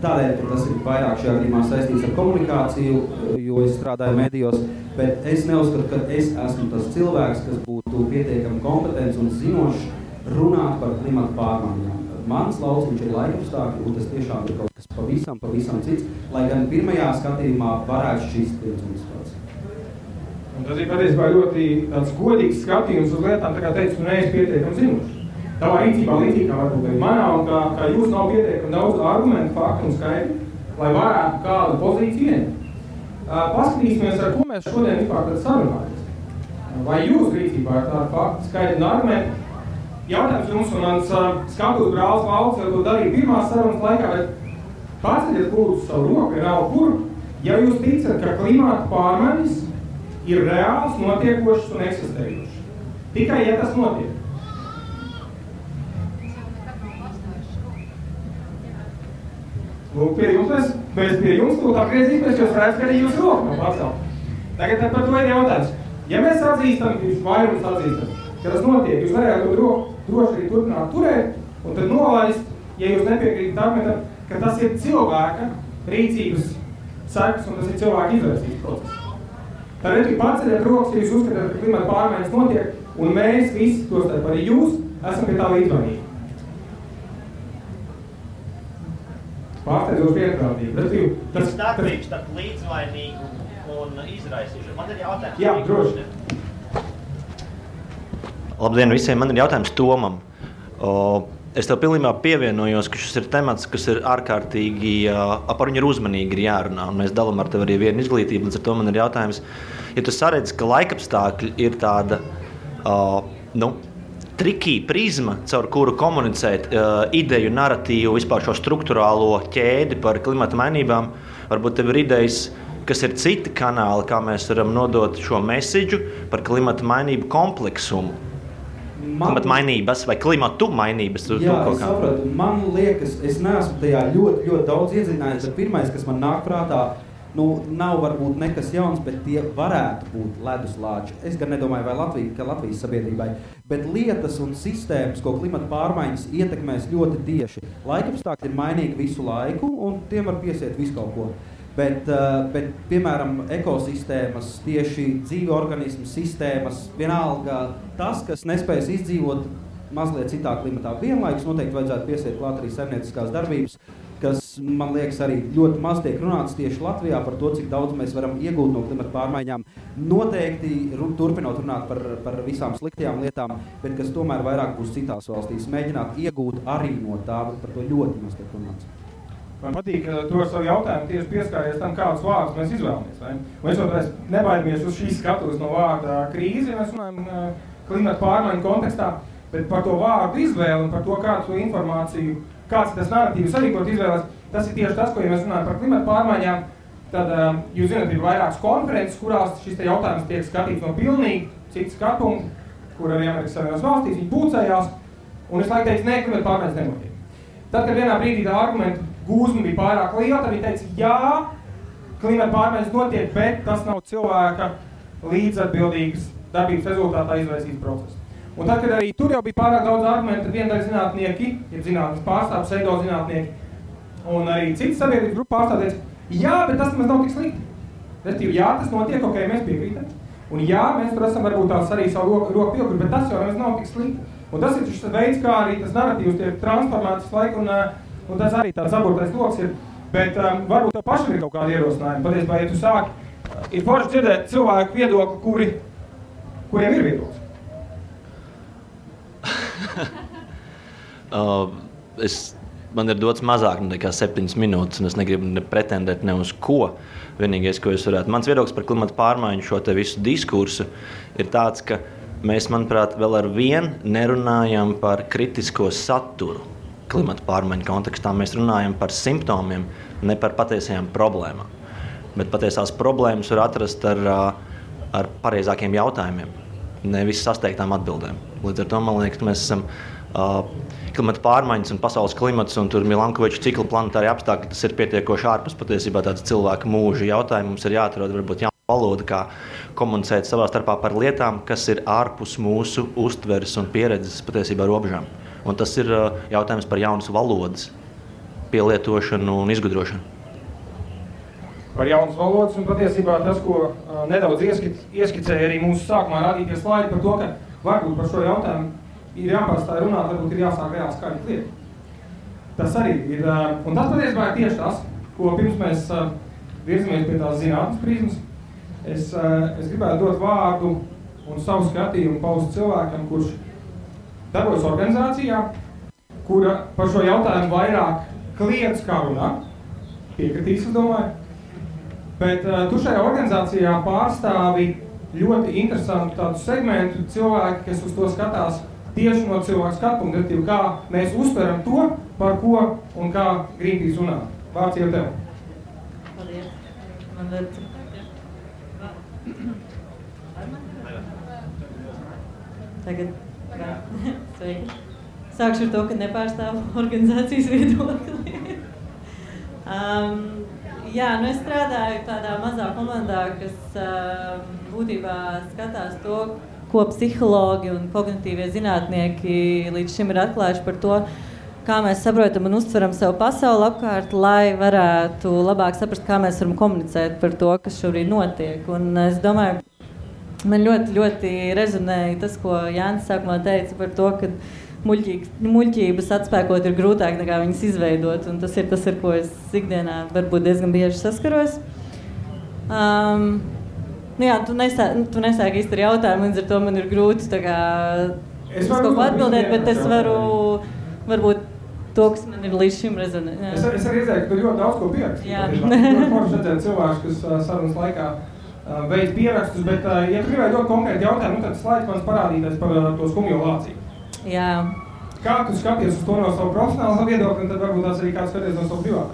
tādēļ, ka tas ir vairāk šajā gadījumā saistīts ar komunikāciju, jo es strādāju medijos, bet es neuzskatu, ka es esmu tas cilvēks, kas būtu pietiekami kompetents un zinošs runāt par klimatu pārmaiņām. Mans lauciņš ir laikapstākļi, un tas tiešām ir kaut kas pavisam cits, lai gan pirmajā skatījumā varētu šķist viens un tas pats. Un tas ir patiesībā ļoti tāds godīgs skatījums uz lietām, tā kā teicu, tu neesi pietiekami zinošs. Tavā rīcībā līdzīgi kā varbūt arī manā, un kā jūs nav pietiekami daudz argumentu, faktu un skaidri, lai varētu kādu pozīciju ieņemt. Paskatīsimies, ar ko mēs šodien vispār tad sarunājamies. Vai jūs rīcībā ir tādi fakti, skaidri un argumenti? Jautājums jums un mans skatus brālis Valds jau to darīja pirmās sarunas laikā, bet paceļiet lūdzu savu roku, vienalga kur, ja jūs ticat, ka klimata pārmaiņas ir reāls, notiekošas un eksistējošas. Tikai, ja tas notiek. Lūk, pie jums mēs pie jums tūlīt atgriezīsimies, jo es redzu, ka arī jūs roku nav pacelt. Tagad par to ir jautājums. Ja mēs atzīstam, jūs vairums atzīstam, ka tas notiek, jūs varētu to droši arī turpināt turēt, un tad nolaist, ja jūs nepiekrītat argumentam, ka tas ir cilvēka rīcības sekas, un tas ir cilvēka izvērsības process. Tad arī paceļiet rokas, ja jūs uzskatāt, ka klimata pārmaiņas notiek, un mēs visi, tostarp arī jūs, esam pie tā līdzvainīgi. Pārsteidzoši vienprātīgi. Tas starpības starp līdzvainīgu un izraisīšanu. Man ir jautājums. Jā, droši. Labdien visiem, man ir jautājums Tomam. Es tev pilnībā pievienojos, ka šis ir temats, kas ir ārkārtīgi, par viņu ir uzmanīgi ir jārunā, un mēs dalām ar tev arī vienu izglītību, līdz ar to man ir jautājums, ja tu saredzi, ka laikapstākļi ir tāda, trikī prizma, caur kuru komunicēt ideju, naratīvu, vispār šo struktūrālo ķēdi par klimata mainībām, varbūt tev ir idejas, kas ir citi kanāli, kā mēs varam nodot šo mesidžu par klimata mainību kompleksumu. Klimata mainības vai klimatu mainības? Jā, es sapratu. Man liekas, es neesmu tajā ļoti daudz iedziļinājies, bet pirmais, kas man nāk prātā, nav varbūt nekas jauns, bet tie varētu būt leduslāči. Es gan nedomāju, vai Latvijas sabiedrībai, bet lietas un sistēmas, ko klimata pārmaiņas ietekmēs ļoti tieši. Laikapstākļi ir mainīgi visu laiku, un tiem var piesiet visu kaut ko. Bet, piemēram, ekosistēmas, tieši dzīvi organismu sistēmas, vienalga tas, kas nespējas izdzīvot mazliet citā klimatā. Vienlaikus noteikti vajadzētu piesiet klāt arī saimnieciskās darbības, kas, man liekas, arī ļoti maz tiek runāts tieši Latvijā par to, cik daudz mēs varam iegūt no klimata pārmaiņām. Noteikti turpinot runāt par visām sliktajām lietām, bet kas tomēr vairāk būs citās valstīs. Mēģināt iegūt arī no tā, bet par to ļoti maz tiek runāts. Man patīk, ka tu ar savu jautājumu tieši pieskāries tam, kādus vārdus mēs izvēlamies. Vai? Mēs vēl nebaidamies uz šīs skatuves no vārda krīze, ja mēs runājam klimata pārmaiņu kontekstā, bet par to vārdu izvēli un par to, kādu informāciju, kāds tas narratīvs arī, ko izvēlēs, tas ir tieši tas, ko, ja mēs runājam par klimata pārmaiņām, tad jūs zināt, ir vairākas konferences, kurās šis te jautājums tiek skatīts no pilnīgi citas skatpunkta, kur arī Amerikas Savienotās valstīs viņi pulcējās, un es laiku teicu, nē, klimata pārmaiņas nenotiek. Tad, kad vienā brīdī tā argumentu gūzma bija pārāk liela, tad viņi teica, jā, klimata pārmaiņas notiek, bet tas nav cilvēka līdzatbildīgas darbības rezultātā izraisīts process. Un tad, kad arī tur jau bija pārāk daudz argumentu, tad viendaļ zinātnieki, ja zinātnes pārstāv, pseido zinātnieki, un arī citas sabiedrības grupu pārstāv teica, jā, bet tas nemaz nav tik slikti. Respektīvi, jā, tas notiek, ok, mēs piekrītam. Un jā, mēs tur esam varbūt tās arī savu roku piekur, bet tas jau nemaz nav tik slikti. Un tas ir šis veids, kā arī tas narratīvs tiek transformēts laiku, un tas arī tāds aburtais loks ir. Bet varbūt tev pašam ir kaut kādi ierosinājumi. Patiesībā, ja tu sāki, ir forši dzirdēt cilvēku viedokli, kuriem ir viedoklis. Man ir dots mazāk nekā 7 minūtes, un es negribu pretendēt ne uz ko. Vienīgais, ko es varētu. Mans viedoklis par klimata pārmaiņu šo te visu diskursu ir tāds, ka mēs, manuprāt, vēl ar vienu nerunājam par kritisko saturu klimata pārmaiņu kontekstā. Mēs runājam par simptomiem, ne par patiesajām problēmām. Bet patiesās problēmas var atrast ar pareizākiem jautājumiem, nevis sasteigtām atbildēm. Līdz ar to, man liekas, mēs esam klimata pārmaiņas un pasaules klimats un tur Milankoviča cikla planetārie apstākļi, tas ir pietiekoši ārpus patiesībā tāds cilvēka mūža jautājums. Mums ir jāatrod varbūt jauna valoda, kā komunicēt savā starpā par lietām, kas ir ārpus mūsu uztveres un pieredzes patiesībā robežām. Un tas ir jautājums par jaunas valodas pielietošanu un izgudrošanu. Par jaunas valodas un patiesībā tas, ko nedaudz ieskicēja arī mūsu sākumā rādīties slaidi par to, ka varbūt par šo jautājumu ir jāpārstāj runāt, varbūt ir jāsāk reāli skaidrs lietas. Tas arī ir, un tas patiesībā ir tieši tas, ko pirms mēs virzamies pie tās zinātnes prizmas. Es gribētu dot vārdu un savu skatījumu paust cilvēkam, kurš darbojas organizācijā, kura par šo jautājumu vairāk kliedz kā runā, piekritīs, es domāju. Bet tu šajā organizācijā pārstāvi ļoti interesantu tādu segmentu cilvēki, kas uz to skatās tieši no cilvēku skatpunkta, kā mēs uztveram to, par ko un kā Greenpeace runā. Vārds jau tev. Paldies. Man var... Tagad. Sveiki. Sākšu ar to, ka nepārstāvu organizācijas viedokli. Jā, es strādāju tādā mazā komandā, kas būtībā skatās to, ko psihologi un kognitīvie zinātnieki līdz šim ir atklājuši par to, kā mēs saprotam un uztveram savu pasauli apkārt, lai varētu labāk saprast, kā mēs varam komunicēt par to, kas šobrīd notiek. Un es domāju, man ļoti, ļoti rezonēja tas, ko Jānis sākumā teica par to, ka muļķības atspēkot ir grūtāk nekā viņas izveidot, un tas ir tas, ar ko es ikdienā varbūt diezgan bieži saskaros. Jā, tu nesāki īsti ar jautājumu, līdz ar to man ir grūti tā kā es kaut ko atbildēt, bet es varu varbūt to, kas man ir līdz šim rezonē. Es arī redzēju, ka tu ļoti daudz ko pieraksti. Jā. Ļoti forši redzēt cilvēkus, kas sarunas laikā veids pierakstus, bet ja tu gribēji dot konkrēti jautājumu, tad slaids man parādīties par to skumjo lāciju. Jā. Kā tu skaties uz to no savu profesionālu viedokli, un tad varbūt tās arī kāds skaties no savu privātu?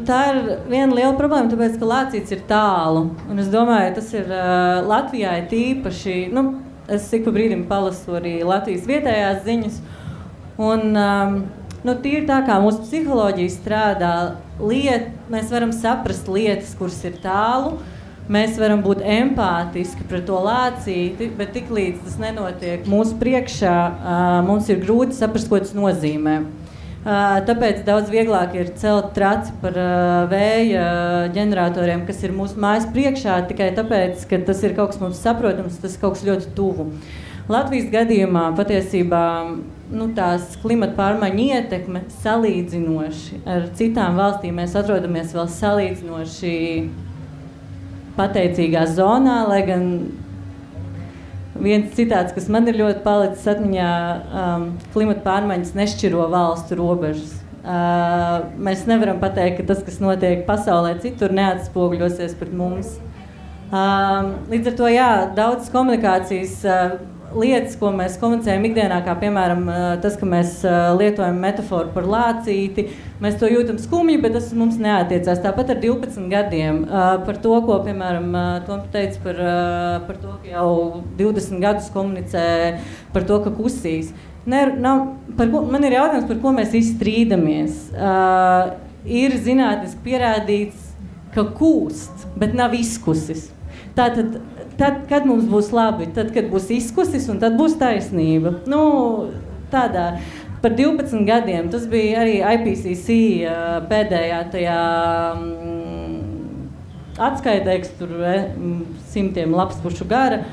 Tā ir viena liela problēma, tāpēc, ka lācīts ir tālu. Un es domāju, tas ir Latvijā tīpaši, es ik pa brīdim palasu arī Latvijas vietējās ziņas. Un tīri tā kā mūsu psiholoģija strādā, mēs varam saprast lietas, kuras ir tālu. Mēs varam būt empātiski pret to lācīti, bet tiklīdz tas nenotiek mūsu priekšā, mums ir grūti saprast, ko tas nozīmē. Tāpēc daudz vieglāk ir celt traci par vēja ģeneratoriem, kas ir mūsu mājas priekšā, tikai tāpēc, ka tas ir kaut kas mums saprotams, tas ir kaut kas ļoti tuvu. Latvijas gadījumā patiesībā tās klimata pārmaiņu ietekme salīdzinoši ar citām valstīm. Mēs atrodamies vēl salīdzinoši pateicīgā zonā, lai gan viens citāts, kas man ir ļoti palicis atmiņā, klimata pārmaiņas nešķiro valstu robežas. Mēs nevaram pateikt, ka tas, kas notiek pasaulē citur, neatspoguļosies pret mums. Līdz ar to, jā, daudz komunikācijas lietas, ko mēs komunicējam ikdienā, kā piemēram tas, ka mēs lietojam metaforu par lācīti, mēs to jūtam skumji, bet tas mums neatiecās. Tāpat ar 12 gadiem par to, ko, piemēram, Tom teica par to, ka jau 20 gadus komunicē par to, ka kusīs. Man ir jautājums, par ko mēs izstrīdamies. Ir zinātniski pierādīts, ka kūst, bet nav izkusis. Tātad, kad mums būs labi, tad, kad būs izkusis, un tad būs taisnība. Tādā. Par 12 gadiem, tas bija arī IPCC pēdējā tajā atskaitē, kas tur 100 lapspušu gara.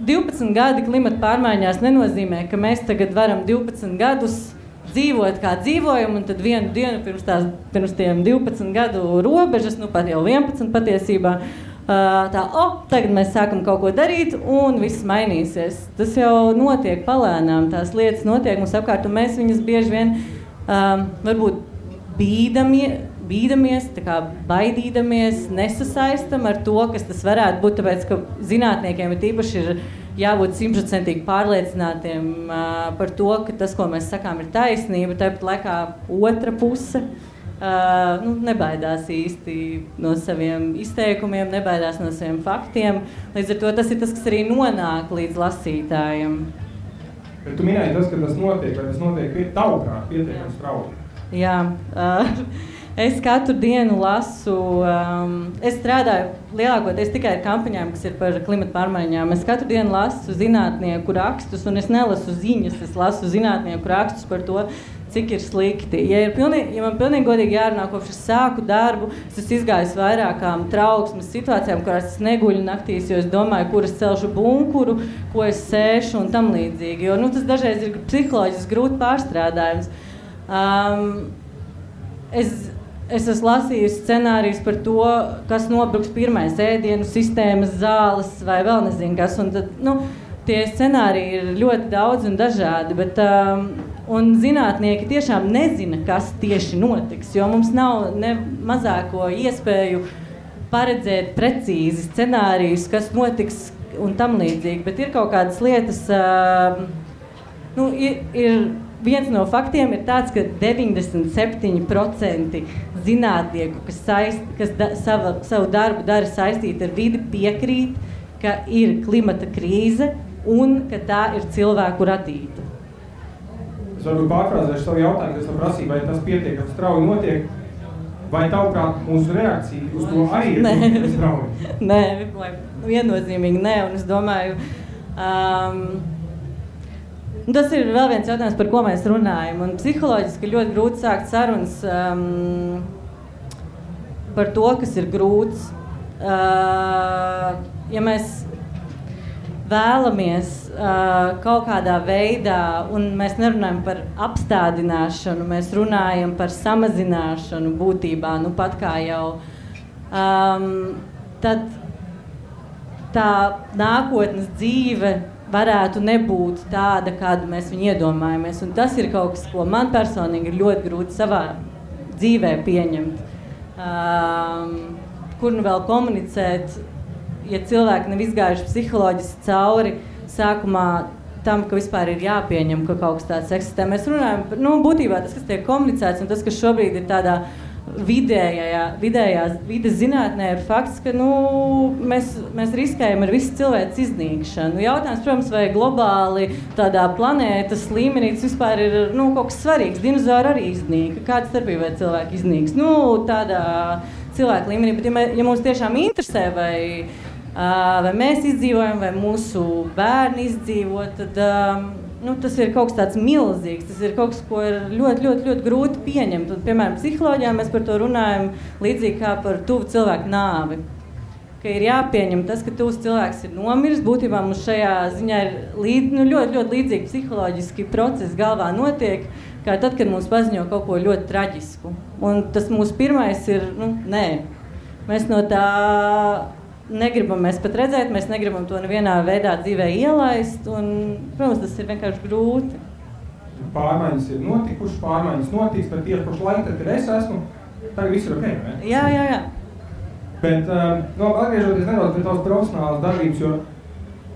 12 gadi klimata pārmaiņās nenozīmē, ka mēs tagad varam 12 gadus dzīvot, kā dzīvojam, un tad vienu dienu pirms tiem 12 gadu robežas, pat jau 11 patiesībā, tagad mēs sākam kaut ko darīt, un viss mainīsies. Tas jau notiek palēnām, tās lietas notiek mums apkārt, un mēs viņas bieži vien varbūt bīdamies, baidīdamies, nesasaistam ar to, kas tas varētu būt, tāpēc, ka zinātniekiem ir tīpaši ir jābūt 100% pārliecinātiem par to, ka tas, ko mēs sakām, ir taisnība, tāpat laikā otra puse nebaidās īsti no saviem izteikumiem, nebaidās no saviem faktiem. Līdz ar to tas ir tas, kas arī nonāk līdz lasītājiem. Bet tu minēji tas, ka tas notiek, vai tas notiek tavuprāt pietiekami strauji? Jā. Es katru dienu lasu, es strādāju lielākoties tikai ar kampaņām, kas ir par klimata pārmaiņām. Es katru dienu lasu zinātnieku rakstus, un es nelasu ziņas, es lasu zinātnieku rakstus par to, cik ir slikti. Ja man pilnīgi godīgi jārunā, kopš es sāku darbu, es esmu izgājis vairākām trauksmes situācijām, kurās es neguļu naktīs, jo es domāju, kur es celšu bunkuru, ko es sēšu un tam līdzīgi. Jo tas dažreiz ir psiholoģiski grūti pārstrādājums. Es esmu lasījusi scenārijus par to, kas nobruks pirmais ēdienu sistēmas, zāles vai vēl nezinu kas. Un tad, tie scenāriji ir ļoti daudz un dažādi, bet un zinātnieki tiešām nezina, kas tieši notiks, jo mums nav ne mazāko iespēju paredzēt precīzi scenārijus, kas notiks un tam līdzīgi. Bet ir kaut kādas lietas, viens no faktiem ir tāds, ka 97% zinātnieku, kas savu darbu dara saistīti ar vidi, piekrīt, ka ir klimata krīze un ka tā ir cilvēku radīta. Es varbūt pārfrāzēšu savu jautājumu, kas prasīja, vai tas pietiekami strauji notiek, vai tavuprāt mūsu reakcija uz to arī ir pietiekami strauji? Nē, viennozīmīgi nē, un es domāju, tas ir vēl viens jautājums, par ko mēs runājam. Un psiholoģiski ļoti grūti sākt sarunas par to, kas ir grūts. Ja mēs vēlamies kaut kādā veidā, un mēs nerunājam par apstādināšanu, mēs runājam par samazināšanu būtībā, pat kā jau, tad tā nākotnes dzīve varētu nebūt tāda, kādu mēs viņu iedomājamies. Un tas ir kaut kas, ko man personīgi ir ļoti grūti savā dzīvē pieņemt. Kur nu vēl komunicēt, ja cilvēki nav izgājuši psiholoģiski cauri sākumā tam, ka vispār ir jāpieņem, ka kaut kas tāds eksistē. Mēs runājam par, būtībā tas, kas tiek komunicēts, un tas, kas šobrīd ir tādā vidējās vides zinātnē, ir fakts, ka mēs riskējam ar visu cilvēku iznīkšanu. Jautājums, protams, vai globāli tādā planētas līmenī tas vispār ir kaut kas svarīgs. Dinozauri arī iznīka. Kāda starpība vai cilvēki iznīks? Tādā cilvēku līmenī, bet ja mums tiešām interesē, vai mēs izdzīvojam, vai mūsu bērni izdzīvo, tad tas ir kaut kas tāds milzīgs, tas ir kaut kas, ko ir ļoti grūti pieņemt. Un, piemēram, psiholoģijā mēs par to runājam līdzīgi kā par tuvu cilvēku nāvi. Ka ir jāpieņem tas, ka tuvs cilvēks ir nomiris. Būtībā mums šajā ziņā ir ļoti līdzīgi psiholoģiski procesi galvā notiek, kā tad, kad mums paziņo kaut ko ļoti traģisku. Un tas mūsu pirmais ir, nē, mēs no tā negribam mēs pat redzēt, mēs negribam to nevienā veidā dzīvē ielaist, un, protams, tas ir vienkārši grūti. Pārmaiņas ir notikušas, pārmaiņas notiks, bet tieši pašu laiku, tad, kad es esmu, tagad viss ir ok, ne? Jā. Bet, atgriežoties nedaudz pie tavas profesionālas darbības, jo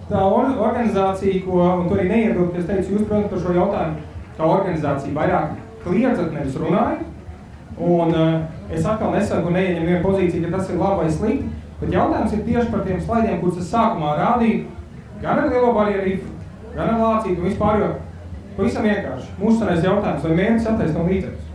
tā organizācija, un to arī neiebildu, ka es teicu, jūs, protams, par šo jautājumu, kā organizācija vairāk kliedzat, nevis runājat, un es atkal nesaku, neieņem vienu pozīciju, ka tas ir labi vai slikti, bet jautājums ir tieši par tiem slaidiem, kurus es sākumā rādīju, gan ar Lielo barjeru rifu, gan ar Lācītu un vispār, jo pavisam vienkārši. Mūsu sanais jautājums, vai mērķis attaisno līdzekļus?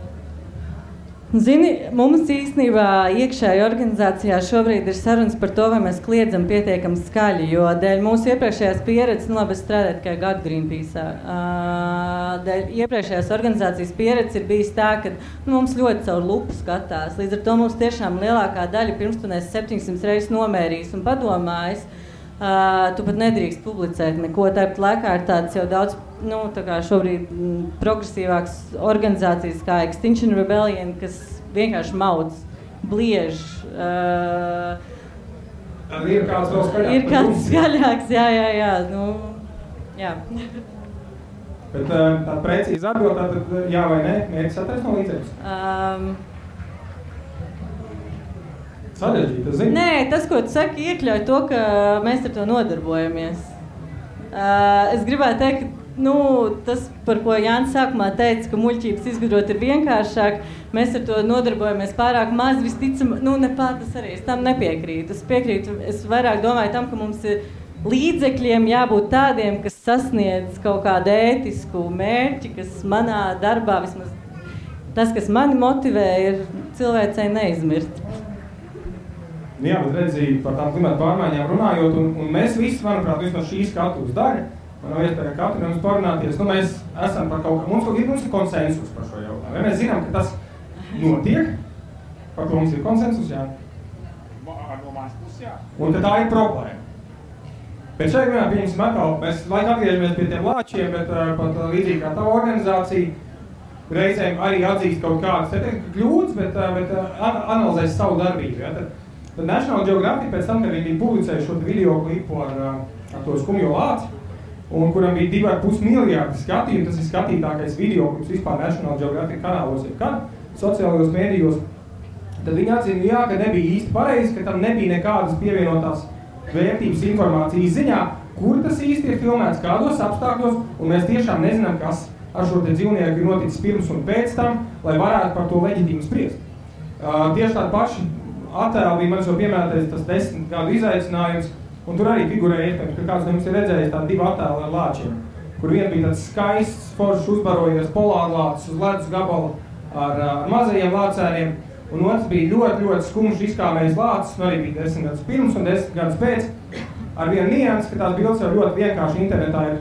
Zini, mums īstenībā iekšēji organizācijā šobrīd ir sarunas par to, vai mēs kliedzam pietiekami skaļi, jo dēļ mūsu iepriekšējās pieredzes, es strādāju tikai gadu Greenpeace'ā, dēļ iepriekšējās organizācijas pieredzes ir bijis tā, ka mums ļoti caur lupu skatās, līdz ar to mums tiešām lielākā daļa pirms tu nes 700 reizes nomērījis un padomājis, tu pat nedrīkst publicēt neko, tāpat laikā ir tāds jau daudz, tā kā šobrīd progresīvāks organizācijas kā Extinction Rebellion, kas vienkārši maudz, bliež. Tad ir kāds vēl skaļāks? Ir kāds skaļāks, jā. Jā. Bet tāda precīza atbild, tātad jā vai nē, mērķis attaisno līdzekļus? Sarežģīt, tas zini? Nē, tas, ko tu saki, iekļauj to, ka mēs ar to nodarbojamies. Es gribētu teikt, ka tas, par ko Jānis sākumā teica, ka muļķības izgudrot ir vienkāršāk, mēs ar to nodarbojamies pārāk maz, visticam, tas arī, es tam nepiekrītu. Es piekrītu, es vairāk domāju tam, ka mums ir līdzekļiem jābūt tādiem, kas sasniedz kaut kādu ētisku mērķi, kas manā darbā, vismaz tas, kas mani motivē, ir cilvēcei neizmirt. Jā, bet redzīju par tām klimata pārmaiņām runājot, un mēs visi, manuprāt, vismaz šī skatuves daļa, man nav iespēja katru no mums parunāties, mēs esam par kaut kā, mums ir konsensus par šo jautājumu. Ja mēs zinām, ka tas notiek, par ko mums ir konsensus, jā. Un ka tā ir problēma. Bet šeit vienā pieņemsim atkal, mēs laik atgriežamies pie tiem lāčiem, bet pat līdzīgi kā tava organizācija reizēm arī atzīst kaut kādas kļūdas, bet analizēs savu darbību. Ja? Tad National Geographic pēc tam, kad viņi bija publicējuši šo video klipu ar to skumjo lāci, un kuram bija 2,5 miljārdi skatījumu, tas ir skatītākais video klips vispār National Geographic kanālos, sociālajos mēdījos, tad viņi atzina, ka nebija īsti pareizi, ka tam nebija nekādas pievienotās vērtības informācijas ziņā, kur tas īsti ir filmēts, kādos apstākļos, un mēs tiešām nezinām, kas ar šo te dzīvnieku ir noticis pirms un pēc tam, lai varētu par to leģitīmi spriest. Tieši tādi paši attēli bija manis jau piemērotais tas 10 gadu izaicinājums, un tur arī figurēja iespējams, ka kāds no jums ir redzējis tādi 2 attēli ar lāčiem, kur vien bija tāds skaists, foršs uzbarojies polārlācis uz ledus gabalu ar mazajiem lācēniem, un otrs bija ļoti skumjš izkāmējis lācis, un arī bija 10 gadus pirms un 10 gadus pēc, ar vienu niansi, ka tās bildes jau ļoti vienkārši internetā ir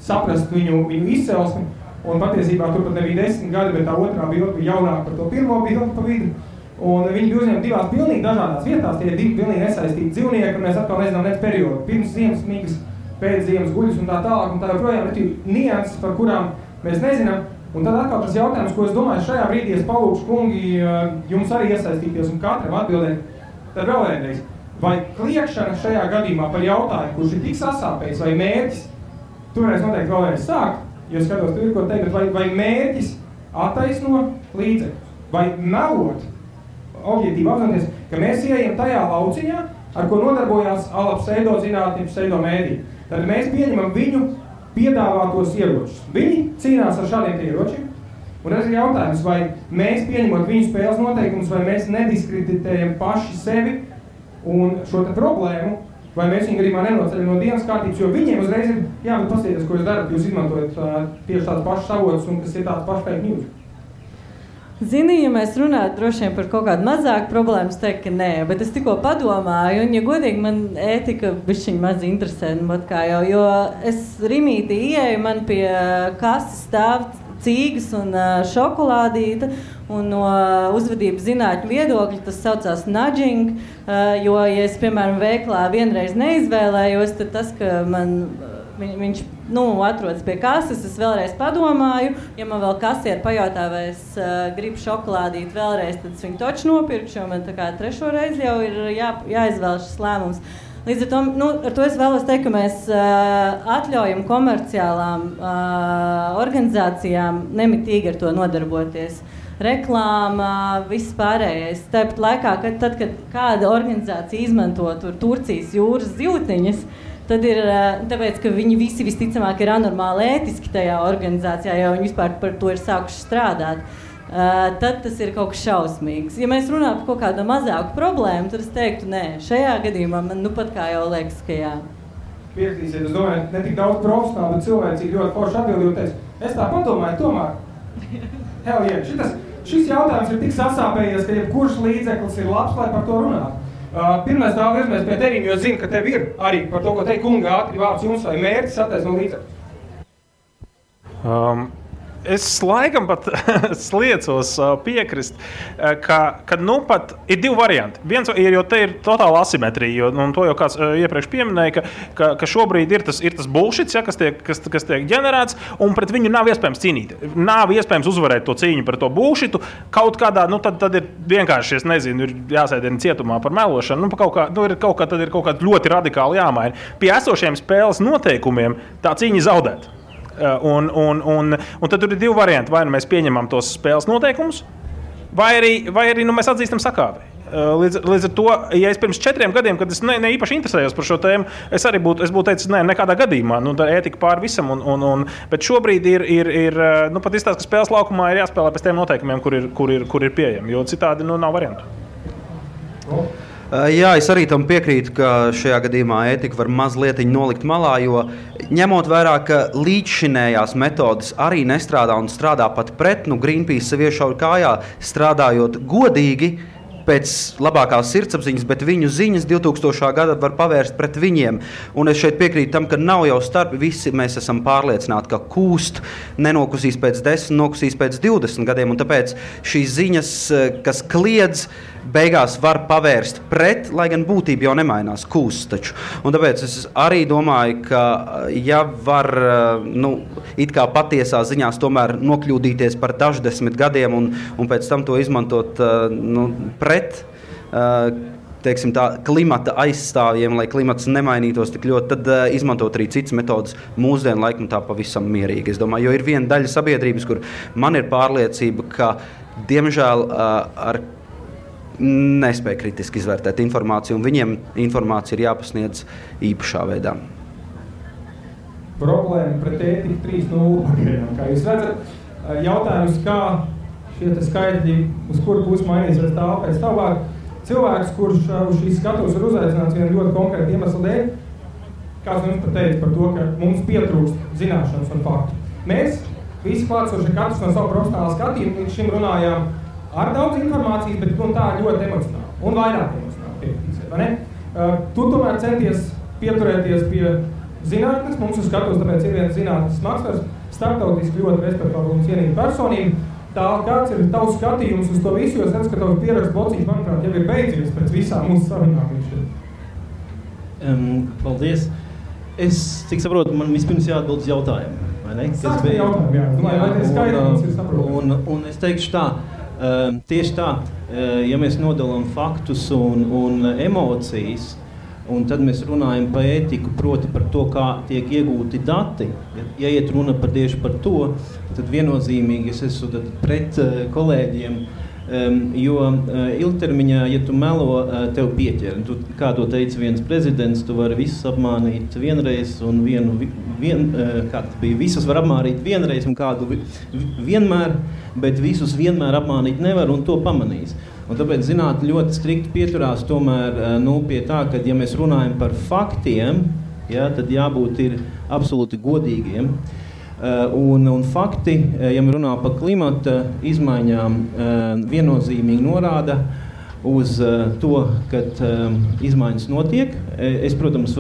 saprast viņu izcelsmi, un patiesībā tur pat nebija 10 gadi, bet tā otrā bilde bija jaunāka par to pirmo bildi pa vidu. Un viņi bija uzņemti 2 pilnīgi dažādās vietās, tie ir 2 pilnīgi nesaistīti dzīvnieki, un mēs atkal nezinām nec periodu. Pirms ziemas migas, pēc ziemas guļas un tā tālāk, un tā joprojām ir nianses, par kurām mēs nezinām. Un tad atkal tas jautājums, ko es domāju, šajā brīdī es palūkšu kungi jums arī iesaistīties un katram atbildēt. Tad vēl vienreiz, vai kliekšana šajā gadījumā par jautājumu, kurš ir tik sasāpējis, vai mērķis, toreiz noteikti vēl vienreiz sākt, jo skatos, tur ir ko teikt, bet vai mērķis attaisno līdzekļus, vai melot, objektīvi apzinoties, ka mēs ieejam tajā lauciņā, ar ko nodarbojās pseidozinātņi, pseidomēdī. Tad mēs pieņemam viņu piedāvātos ieročus. Viņi cīnās ar šādiem ieročiem, un tas ir jautājums, vai mēs pieņemot viņu spēles noteikumus, vai mēs nediskreditējam paši sevi un šo te problēmu, vai mēs viņu gadījumā nenoceļam no dienas kārtības, jo viņiem uzreiz ir, bet paskatieties, ko jūs darat, jūs izmantojat tieši tāds pašs avots un kas ir tāds pašs fake news. Zini, ja mēs runātu droši vien par kaut kādu mazāku problēmu, es teiktu, ka nē, bet es tikko padomāju, un, ja godīgi, man ētika bišķiņ maz interesē, jo es rimītī ieeju, man pie kases stāv cīgas un šokolādīta, un no uzvedības zinātņu viedokļa tas saucās nudging, jo, ja es, piemēram, veiklā vienreiz neizvēlējos, tad tas, ka viņš atrodas pie kases, es vēlreiz padomāju, ja man vēl kasieri pajautā, vai es gribu šokolādīt vēlreiz, tad es viņu toču nopirkšu, jo man tā kā 3. reizi jau ir jāizvēl šis lēmums. Līdz ar to, ar to es vēlos teikt, ka mēs atļaujam komerciālām organizācijām nemitīgi ar to nodarboties. Reklāma, viss pārējais. Tāpat laikā, kad kāda organizācija izmanto Turcijas jūras zīltiņas, tad ir tāpēc, ka viņi visi visticamāk ir anormāli ētiski tajā organizācijā, jo viņi vispār par to ir sākuši strādāt. Tad tas ir kaut kas šausmīgs. Ja mēs runājam par kaut kādu mazāku problēmu, tad es teiktu, nē, šajā gadījumā man pat kā jau liekas, ka jā. Piekritīsiet, es domāju, ne tik daudz profesionāli, bet cilvēcīgi ļoti forši atbildīju teicu. Es tā padomāju, tomēr. Hell yeah, šis jautājums ir tik sasāpējies, ka jebkurš līdzeklis ir labs, lai par to runātu. Pirmais tā virzimies pie tevīm, jo zinu, ka tev ir arī par to, ko teikt kunga ātri vārds jums vai mērķis attaisno līdzekļus. Es laikam pat sliecos piekrist, ka pat ir 2 varianti. Viens ir, jo te ir totāla asimetrija, un to jau kāds iepriekš pieminēja, ka šobrīd ir tas bullshits, ja, kas tiek ģenerēts, un pret viņu nav iespējams cīnīt. Nav iespējams uzvarēt to cīņu par to bullshitu. Kaut kādā, tad ir vienkārši, es nezinu, ir jāsēdien cietumā par melošanu, tad ir kaut kā ļoti radikāli jāmaina. Pie esošiem spēles noteikumiem tā cīņa zaudēt. Un tad tur ir 2 varianti. Vai nu mēs pieņemam tos spēles noteikumus, vai arī mēs atzīstam sakāvi. Līdz ar to, ja es pirms 4 gadiem, kad es ne īpaši interesējos par šo tēmu, es būtu teicis, nekādā gadījumā, tā ētika pār visam, bet šobrīd ir pat izstāst, ka spēles laukumā ir jāspēlē pēc tiem noteikumiem, kur ir pieejami, jo citādi nav variantu. Jā, es arī tam piekrītu, ka šajā gadījumā ētika var mazliet nolikt malā, jo ņemot vērā, ka līdzšinējās metodas arī nestrādā un strādā pat pret, Greenpeace sev iešauj kājā, strādājot godīgi, pēc labākās sirdsapziņas, bet viņu ziņas 2000. Gada var pavērst pret viņiem. Un es šeit piekrītu tam, ka nav jau starpi. Visi mēs esam pārliecināti, ka kūst nenokusīs pēc 10, nokusīs pēc 20 gadiem. Un tāpēc šīs ziņas, kas kliedz, beigās var pavērst pret, lai gan būtība jau nemainās, kūst taču. Un tāpēc es arī domāju, ka ja var, it kā patiesā ziņās tomēr nokļūdīties par daždesmit gadiem un pēc tam to izmantot pret, teiksim tā, klimata aizstāvjiem, lai klimats nemainītos tik ļoti, tad izmantot arī citas metodas mūsdienu laikmetā pavisam mierīgi. Es domāju, jo ir viena daļa sabiedrības, kur man ir pārliecība, ka, diemžēl, ar nespēja kritiski izvērtēt informāciju, un viņiem informācija ir jāpasniedz īpašā veidā. Problēma pret ētiku 3.0 pagaidām. Kā jūs redzat, jautājums, kā šie skaitļi, uz kuru pusi mainīsies pēc tālāk. Cilvēks, kurš uz šīs skatuves ir uzaicināts vienu ļoti konkrētu iemeslu dēļ, kāds jums pat teica par to, ka mums pietrūkst zināšanas un faktu. Mēs visi klātsoši katrs no savu profesionālu skatījumu līdz šim runājām ar daudz informācijas, bet tā ļoti emocionāli un vairāk emocionāli piekritīsiet, vai ne? Tu tomēr centies pieturēties pie zinātnes, mums uz skatuves, tāpēc ir viens zinātnes makslers, starptautiski ļoti respektabla un cienīga personība. Tā, kāds ir tavs skatījums uz to visu, jo es redzu, ka tavs pierakstu blociņš, manuprāt, jau ir beidzies pēc visām mūsu sarunām līdz. Paldies. Es, cik saprotu, man vispirms jāatbild uz jautājumu, vai ne? Sāksim jautājumu, jā. Vai tie skaidri mums ir saprotami? Un es teikšu tā, tieši tā, ja mēs nodalām faktus un emocijas, un tad mēs runājam par ētiku, proti par to, kā tiek iegūti dati. Ja iet runa tieši par to, tad viennozīmīgi es esmu pret kolēģiem, jo ilgtermiņā, ja tu melo, tev pieķer. Kā to teica viens prezidents, tu vari visus apmānīt vienreiz un visus var apmānīt vienreiz un kādu vienmēr, bet visus vienmēr apmānīt nevar un to pamanīs. Un tāpēc zinātne ļoti strikti pieturās tomēr pie tā, ka ja mēs runājam par faktiem, ja, tad jābūt ir absolūti godīgiem. Un fakti, ja mēs runājam par klimata izmaiņām, viennozīmīgi norāda uz to, ka izmaiņas notiek. Es, protams,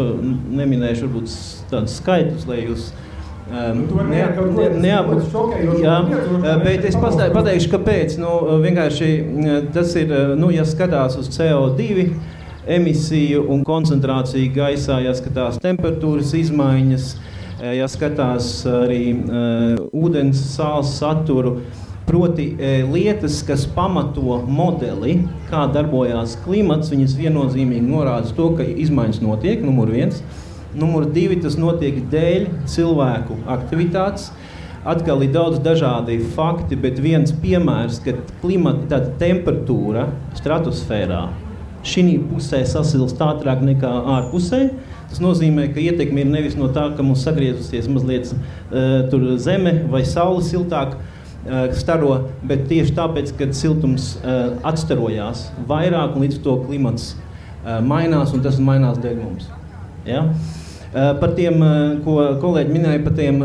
neminēšu varbūt tādus skaitļus, lai jūs bet es pateikšu, kāpēc. Vienkārši tas ir, ja skatās uz CO2 emisiju un koncentrāciju gaisā, ja skatās temperatūras izmaiņas, ja skatās arī ūdens sāls saturu, proti lietas, kas pamato modeli, kā darbojās klimats, viņas viennozīmīgi norāda to, ka izmaiņas notiek, numur 1. Numur 2, tas notiek dēļ cilvēku aktivitātes. Atkal ir daudz dažādi fakti, bet viens piemērs, ka klimata temperatūra stratosfērā šī pusē sasilst ātrāk nekā ārpusē. Tas nozīmē, ka ietekme ir nevis no tā, ka mums sagriezusies mazliet tur zeme vai saule siltāk staro, bet tieši tāpēc, kad siltums atstarojās vairāk un līdz to klimats mainās, un tas mainās dēļ mums. Ja? Par tiem, ko kolēģi minēja, par tiem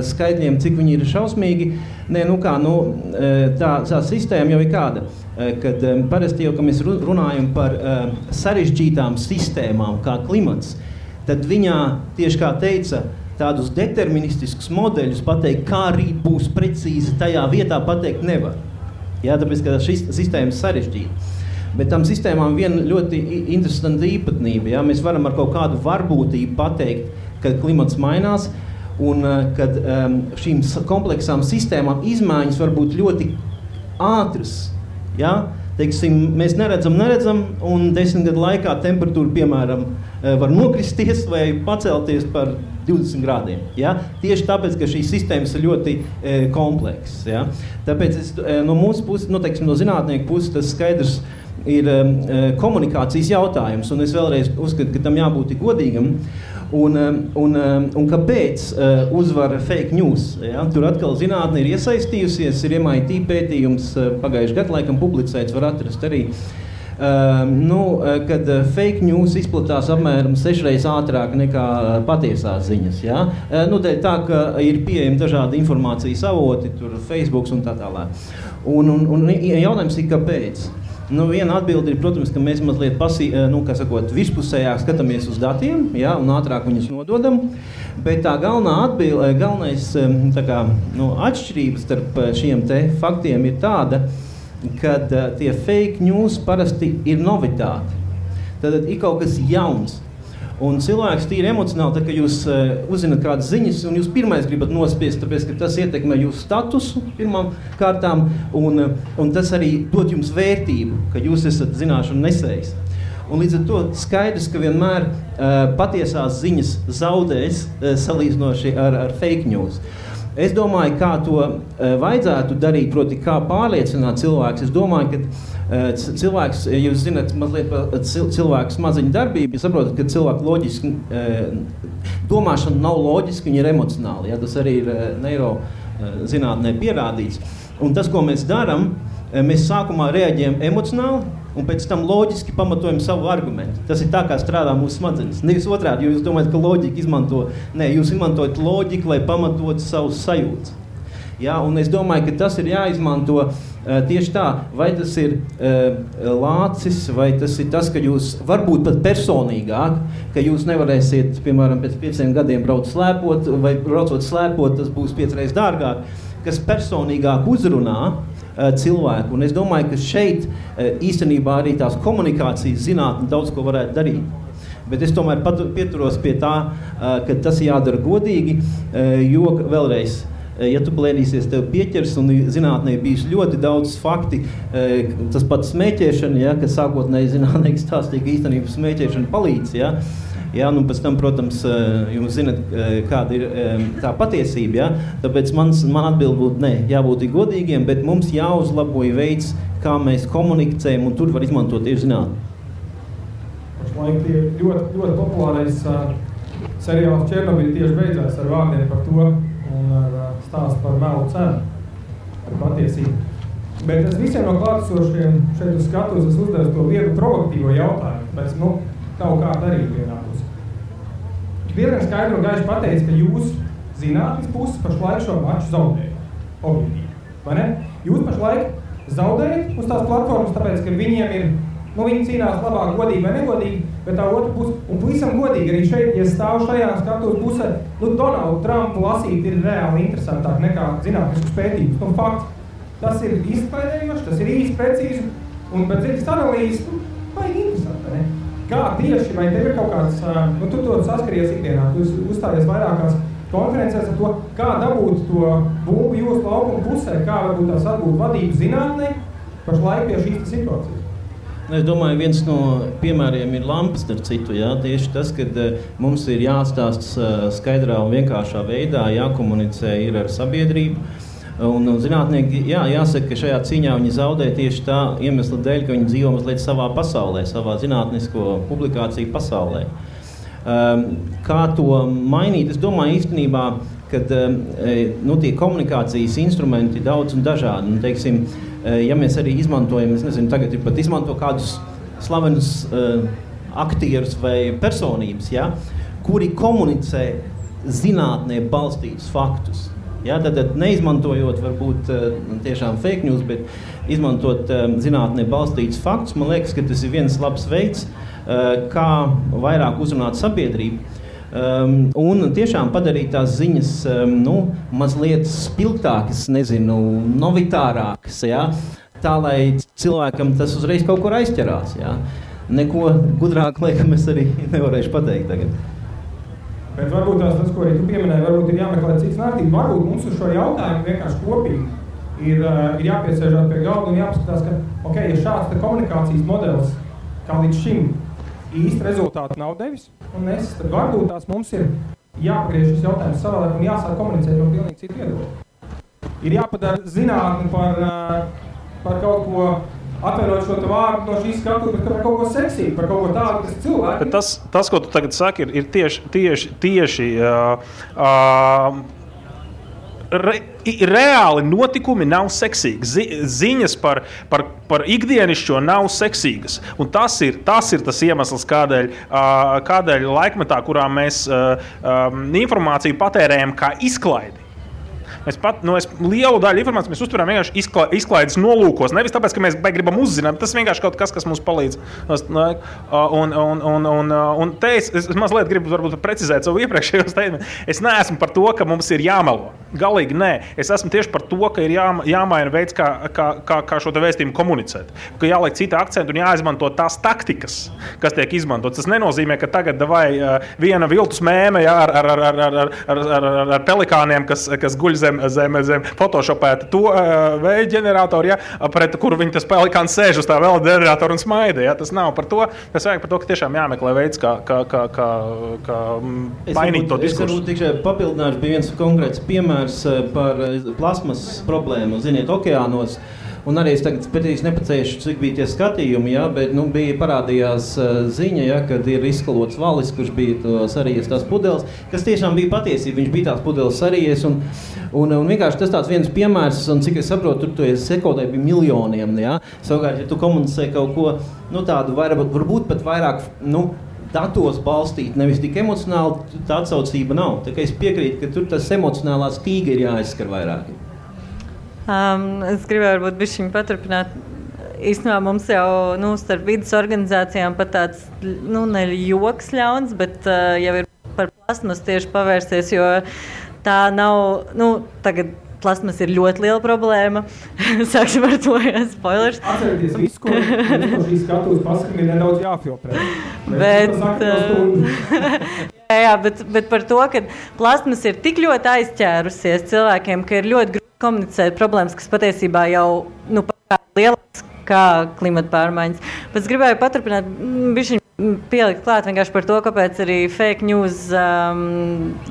skaitļiem, cik viņi ir šausmīgi. Tā sistēma jau ir kāda, kad parasti jau, ka mēs runājam par sarežģītām sistēmām, kā klimats, tad viņā, tieši kā teica, tādus deterministiskus modeļus pateikt, kā rīt būs precīzi tajā vietā, pateikt nevar. Ja? Tāpēc, ka šī sistēma ir sarežģīta. Bet tam sistēmām viena ļoti interesanta īpatnība. Ja? Mēs varam ar kaut kādu varbūtību pateikt, kad klimats mainās, un kad šīm kompleksām sistēmām izmaiņas var būt ļoti ātras. Ja? Teiksim, mēs neredzam, un 10 gadu laikā temperatūra, piemēram, var nokristies vai pacelties par 20 grādiem. Ja? Tieši tāpēc, ka šīs sistēmas ir ļoti komplexas. Ja? Tāpēc no mūsu puses, no zinātnieku puses, tas skaidrs ir komunikācijas jautājums, un es vēlreiz uzskatu, ka tam jābūt godīgam. Un kāpēc uzvar fake news? Ja? Tur atkal zinātne ir iesaistījusies, ir MIT pētījums pagājuši gadu laikam publicēts, var atrast arī, kad fake news izplatās apmēram 6 reizes ātrāk nekā patiesās ziņas. Ja? Dēļ tā, ka ir pieejami dažādi informācijas avoti, tur Facebooks un tā tālāk. Un jautājums ir, kāpēc? Viena atbilde ir, protams, ka mēs mazliet virspusējāk skatāmies uz datiem, ja, un ātrāk viņus nododam, bet tā galvenais atšķirības starp šiem te faktiem ir tāda, kad tie fake news parasti ir novitāti. Tad ir kaut kas jauns. Un cilvēks tīri emocionāli, tā, ka jūs uzzināt kādas ziņas, un jūs pirmais gribat nospiest, tāpēc, ka tas ietekmē jūsu statusu pirmām kārtām, un tas arī dod jums vērtību, ka jūs esat zināšanu nesējis. Un līdz ar to skaidrs, ka vienmēr patiesās ziņas zaudēs salīdzinoši ar fake news. Es domāju, kā to vajadzētu darīt, proti, kā pārliecināt cilvēks. Es domāju, ka cilvēks, ja jūs zināt mazliet par cilvēku smadziņu darbību, jūs saprotat, ka cilvēku loģiski domāšana nav loģiska, viņa ir emocionāla. Ja? Tas arī ir neirozinātnē pierādīts. Un tas, ko mēs darām, mēs sākumā reaģējam emocionāli, un pēc tam loģiski pamatojam savu argumentu. Tas ir tā, kā strādā mūsu smadzenes. Nevis otrādi, jo jūs domājat, ka loģika izmanto. Nē, jūs izmantojat loģiku, lai pamatotu savus sajūtas. Ja, un es domāju, ka tas ir jāizmanto tieši tā, vai tas ir lācis, vai tas ir tas, ka jūs varbūt pat personīgāk, ka jūs nevarēsiet, piemēram, pēc 5 gadiem braukt slēpot, vai braucot slēpot, tas būs 5 reizes dārgāk, kas personīgāk uzrunā cilvēku. Un es domāju, ka šeit īstenībā arī tās komunikācijas zinātne daudz ko varētu darīt. Bet es tomēr pieturos pie tā, ka tas jādara godīgi, jo vēlreiz, ja tu plēnīsies, tev pieķers, un zinātnē bijis ļoti daudz fakti, tas pats smēķēšana, ja, kas sākotnēji zinātnieki stāstīja, ka īstenībā smēķēšana palīdz, ja. Ja, un pēc tam, protams, jūs zināt, kāda ir tā patiesība, ja? Tāpēc man atbild būtu, ne, jābūt godīgiem, bet mums jāuzlaboja veids, kā mēs komunicējam, un tur var izmantot tieši zinātni. Pašlaik tie ļoti populārais seriāls Černobiļa tieši beidzās ar vārdiem par to un ar stāstu par melu cenu, par patiesību. Bet es visiem no klātesošiem šeit uz skatuves es uzdevu to vienu provokatīvo jautājumu, bet tavu kā darīt vienā pusē. Diezgan skaidri un gaiši pateica, ka jūs zinātnes puses pašlaik šo maču zaudēja. Objektīvi, vai ne? Jūs pašlaik zaudējat uz tās platformas, tāpēc, ka viņiem ir, viņi cīnās labāk godīgi vai negodīgi, bet tā otra puse, un pavisam godīgi arī šeit, ja stāv šajā skatuves pusē, Donaldu Trumpu lasīt ir reāli interesantāk nekā zinātniskus pētījumus. Fakts, tas ir izklaidējoši, tas ir īsti precīzi, un pēc dziļas analīzes, baigi interesanti, ne? Kā tieši, vai tev ir kaut kāds, tu to saskaries ikdienā, tu uzstājies vairākās konferencēs ar to, kā dabūt to būvu jūsu laukuma pusē, kā varbūt tās atbūt vadību zinātnē pašlaik pie šīs situācijas. Es domāju, viens no piemēriem ir lampas, starp citu, jā, tieši tas, kad mums ir jāstāsta skaidrā un vienkāršā veidā, jākomunicē ir ar sabiedrību. Un zinātnieki, jāsaka, ka šajā cīņā viņi zaudē tieši tā iemesla dēļ, ka viņi dzīvo mazliet savā pasaulē, savā zinātnisko publikāciju pasaulē. Kā to mainīt? Es domāju īstenībā, kad tie komunikācijas instrumenti daudz un dažādi. Un, teiksim, ja mēs arī izmantojam, es nezinu, tagad ir pat izmanto kādus slavenus aktierus vai personības, ja, kuri komunicē zinātnē balstītus faktus. Ja, tad neizmantojot varbūt tiešām fake news, bet izmantot zinātnē balstītus faktus, man liekas, ka tas ir viens labs veids, kā vairāk uzrunāt sabiedrību. Un tiešām padarīt tās ziņas mazliet spilgtākas, novitārākas, ja? Tā, lai cilvēkam tas uzreiz kaut kur aizķerās. Ja? Neko gudrāk, laikam, es arī nevarēšu pateikt tagad. Bet varbūt tas, ko arī tu pieminēji, varbūt ir jāmeklē cits nārtība. Varbūt mums uz šo jautājumu vienkārši kopīgi ir jāpiesēžās pie galda un jāpaskatās, ka, ja šāds komunikācijas modelis, kā līdz šim, īsti rezultāti nav devis, tad varbūt tās mums ir jāpagriež šis jautājums savādāk un jāsāk komunicēt no pilnīgi citu viedokļu. Ir jāpadara zinātni par kaut ko, atverot šo vārdu no šīs skatuves, bet par kaut ko seksīgu, par kaut ko tādu, kas cilvēki... Bet tas, ko tu tagad saki, ir tieši reāli notikumi nav seksīgi. Ziņas par ikdienišķo nav seksīgas. Un tas ir tas iemesls, kādēļ laikmetā, kurā mēs informāciju patērējam kā izklaidi. Mēs lielu daļu informācijas mēs uztveram vienkārši izklaides nolūkos. Nevis tāpēc, ka mēs gribam uzzināt, tas vienkārši kaut kas mums palīdz. Un te es mazliet gribu varbūt precizēt savu iepriekšējo statement. Es neesmu par to, ka mums ir jāmelo. Galīgi nē. Es esmu tieši par to, ka ir jāmaina veids, kā šo te vēstījumu komunicēt. Ka jāliek cita akcenta un jāizmanto tās taktikas, kas tiek izmantot. Tas nenozīmē, ka tagad viena viltus mēme ar pelikāniem, kas guļ zem photoshopēta to vēja ģeneratoru, pret kuru viņi tas pelikāns sēž uz tā vēl ģeneratoru un smaida. Tas nav par to. Tas vajag par to, ka tiešām jāmeklē veids, kā mainīt to diskursu. Es varbūt tikai papildināšu, bija viens konkrēts piemērs par plasmas problēmu, ziniet, okeānos. Un arī es tagad pētīs nepacēšu, cik bija tie skatījumi, bet bija parādījās ziņa, kad ir izskalots valis, kurš bija sarījies tās pudeles, kas tiešām bija patiesība, viņš bija tās pudeles sarījies, un vienkārši tas tāds viens piemērs, un cik es saprotu, tur sekodē bija miljoniem, Savukārt, ja tu komunicē kaut ko, tādu varbūt pat vairāk, datos balstīt, nevis tik emocionāli, tā atsaucība nav. Tā kā es piekrītu, ka tur tas emocionālā stīga ir jāizskar vairāk. Es gribēju varbūt bišķiņu paturpināt. Īstenībā mums jau starp vidas organizācijām pat tāds, ne joks ļauns, bet jau ir par plasmas tieši pavērsties, jo tā nav, tagad plasmas ir ļoti liela problēma. Sāksim ar to, spoilers. Atcerieties visu, ko šīs skatuves pasakam, ir nedaudz jāfiltrē. Bet par to, ka plasmas ir tik ļoti aizķērusies cilvēkiem, ka ir ļoti grūti komunicēt problēmas, kas patiesībā jau lielāks kā klimata pārmaiņas. Bet es gribēju paturpināt, bišķiņ pielikt klāt vienkārši par to, kāpēc arī fake news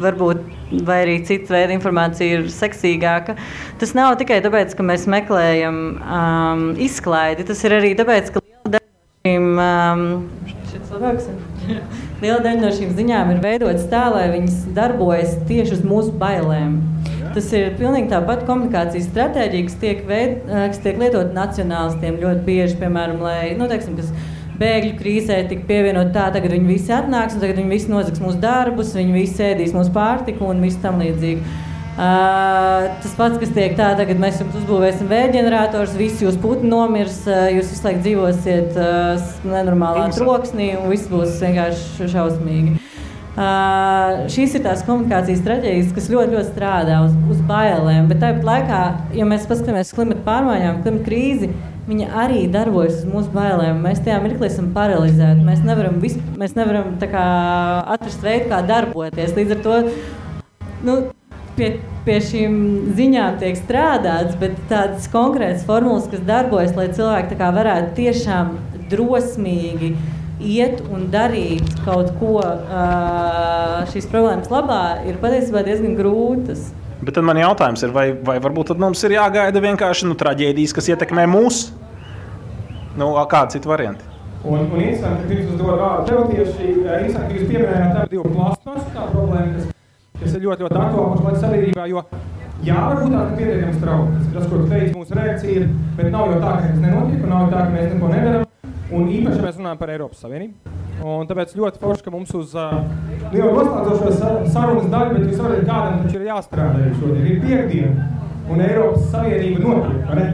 varbūt vai arī cita veida informācija ir seksīgāka. Tas nav tikai tāpēc, ka mēs meklējam izklaidi, tas ir arī tāpēc, ka liela daļa no šīm ziņām ir veidotas tā, lai viņas darbojas tieši uz mūsu bailēm. Tas ir pilnīgi tāpat komunikācijas stratēģija, kas tiek lietot nacionālistiem ļoti bieži, piemēram, lai, kas bēgļu krīzē tika pievienot tā, tagad viņi visi atnāks un tagad viņi visi nozags mūsu darbus, viņi visi ēdīs mūsu pārtiku un visu tam līdzīgi. Tas pats, kas tiek tā, tagad mēs jums uzbūvēsim vējģenerators, visi jūs putni nomirs, jūs visu laiku dzīvosiet nenormālā troksnī un viss būs vienkārši šausmīgi. Šīs ir tās komunikācijas strateģijas, kas ļoti, ļoti strādā uz bailēm, bet tāpat laikā, ja mēs paskatāmies klimata pārmaiņām, klimata krīzi, viņa arī darbojas uz mūsu bailēm. Mēs tajā mirklī esam paralizēti. Mēs nevaram tā kā atrast veidu, kā darboties. Līdz ar to pie šīm ziņām tiek strādāts, bet tādas konkrētas formulas, kas darbojas, lai cilvēki tā kā varētu tiešām drosmīgi iet un darīt kaut ko šīs problēmas labā, ir patiesībā diezgan grūtas. Bet tad man jautājums ir, vai varbūt tad mums ir jāgaida vienkārši traģēdijas, kas ietekmē mūs? Kādi citi varianti? Un interesanti, ka pirms uzdod vārdu tev tieši, interesanti, ka jūs pieminējāt ar divu plastmasu kā problēmu, kas ir ļoti, ļoti aktuāli pašlaik sabiedrībā, jo varbūt tā, ka pietiekami strauji. Tas, ko tu teici, mūsu reakcija ir, bet nav jau tā, ka tas nenotiek, un nav jau tā, ka mēs neko nedaram. Un īpaši mēs runājam par Eiropas Savienību. Un tāpēc ļoti forši, ka mums uz jau noslēdzošo sarunas daļu, bet jūs varat kādam taču ir jāstrādā šodien. Ir piekdiena, un Eiropas Savienība notiek, vai ne?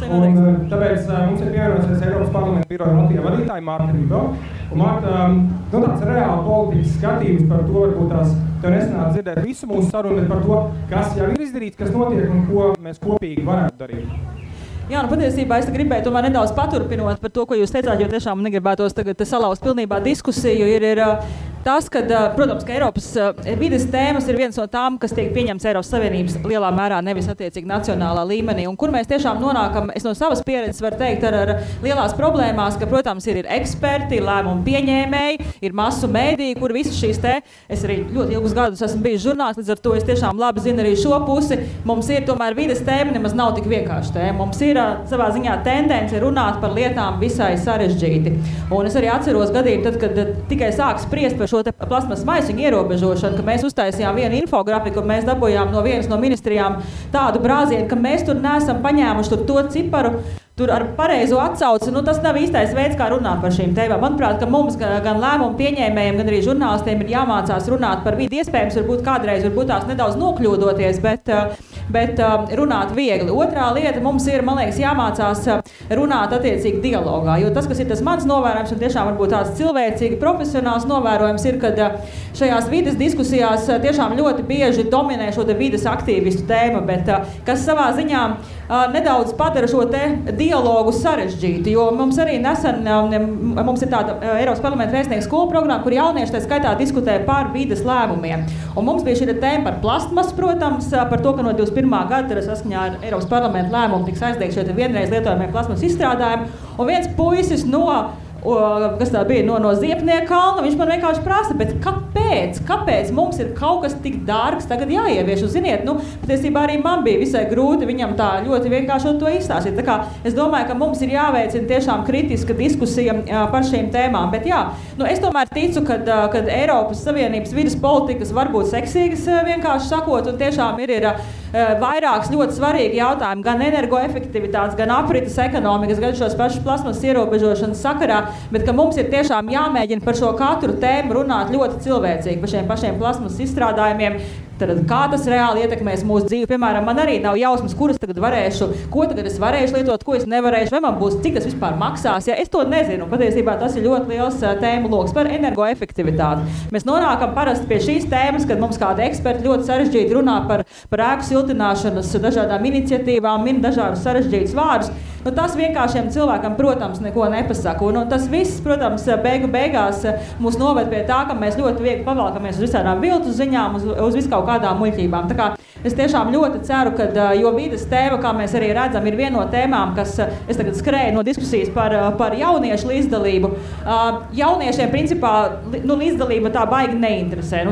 Un tāpēc mums ir pievienosies Eiropas parlamenta biroja Latvijā vadītāja Marta Ribo. Un Marta, tāds reāli politikas skatījums par to, varbūt tās tev nesanāk dzirdēt visu mūsu sarunu, bet par to, kas jau ir izdarīts, kas notiek un ko mēs kopīgi varētu darīt. Jā, patiesībā es gribēju tomēr nedaudz paturpinot par to, ko jūs teicāt, jo tiešām negribētos tagad salauzt pilnībā diskusiju. Ir tas, ka, protams, ka Eiropas vides tēmas ir viens no tām, kas tiek pieņemts Eiropas Savienības lielā mērā, nevis attiecīgi nacionālā līmenī. Un kur mēs tiešām nonākam, es no savas pieredzes varu teikt, ar lielās problēmās, ka, protams, ir eksperti, ir lēmumu pieņēmēji, ir masu mēdīji, kur visas šīs es arī ļoti ilgus gadus esmu bijis žurnālists, līdz ar to es tiešām labi zinu arī šo pusi. Mums ir tomēr vides tēma, nemaz nav tik vienkārši tēma. Mums ir savā ziņā tendence runāt par lietām visai sarežģīti. Un es arī atceros gadījumu, tad, kad tikai sāk spriest par šo plasmas maisiņu ierobežošanu, ka mēs uztaisījām vienu infografiku un mēs dabūjām no vienas no ministrijām tādu brāzienu, ka mēs tur neesam paņēmuši to ciparu, tur ar pareizo atsauci, tas nav īstais veids, kā runāt par šīm tēmām. Manuprāt, ka mums gan lēmumu pieņēmējiem, gan arī žurnālistiem ir jāmācās runāt par vidi. Iespējams, varbūt tās nedaudz nokļūdoties, bet runāt viegli. Otrā lieta mums ir, man liekas, jāmācās runāt attiecīgi dialogā, jo tas, kas ir tas mans novērojums un tiešām varbūt tāds cilvēcīgi profesionāls novērojums ir, kad šajās vides diskusijās tiešām ļoti bieži dominē šo vides aktīvistu tēma, bet kas savā ziņā nedaudz padara šo dialogu sarežģīti, jo mums arī nesen mums ir tāda Eiropas parlamenta vēstnieku skolu programma, kur jaunieši tā skaitā diskutē par vides lēmumiem. Un mums bija šī tēma par plastmasu, protams, par to, ka no 21. gada saskaņā ar Eiropas parlamenta lēmumu tiks aizliegti šie vienreiz lietojamie plasmas izstrādājumi. Un viens puisis kas tā bija no Ziepnieka kalna, viņš man vienkārši prasa, bet kāpēc mums ir kaut kas tik dārgs tagad jāievieš? Un, ziniet, patiesībā arī man bija visai grūti viņam tā ļoti vienkārši to izstāstīt. Tā kā es domāju, ka mums ir jāveicina tiešām kritiska diskusija par šīm tēmām. Bet jā, es tomēr ticu, ka Eiropas Savienības vides politikas var būt seksīgas, vienkārši sakot, un tiešām ir vairākas ļoti svarīgi jautājumi, gan energoefektivitātes, gan aprites ekonomikas, gan šos pašus plasmas ierobežošanas sakarā, bet ka mums ir tiešām jāmēģina par šo katru tēmu runāt ļoti cilvēcīgi, par šiem pašiem plasmas izstrādājumiem. Tad, kā tas reāli ietekmēs mūsu dzīvi? Piemēram, man arī nav jausmas, kuras tagad varēšu, ko tagad es varēšu lietot, ko es nevarēšu, vai man būs, cik tas vispār maksās. Ja, es to nezinu. Patiesībā tas ir ļoti liels tēmu loks par energoefektivitāti. Mēs nonākam parasti pie šīs tēmas, kad mums kādi eksperti ļoti sarežģīti runā par ēku siltināšanas dažādām iniciatīvām, min dažādus sarežģītus vārdus. Tas vienkāršiem cilvēkam, protams, neko nepasaka. Un tas viss, protams, beigās mūs noved pie tā, ka mēs ļoti viegli pavalkamies uz visādām viltus ziņām, uz visu kaut kādām muļķībām. Tā kā es tiešām ļoti ceru, ka, jo vides tēma, kā mēs arī redzam, ir viena no tēmām, kas es tagad skrēju no diskusijas par jauniešu līdzdalību. Jauniešiem, principā, līdzdalība tā baigi neinteresē,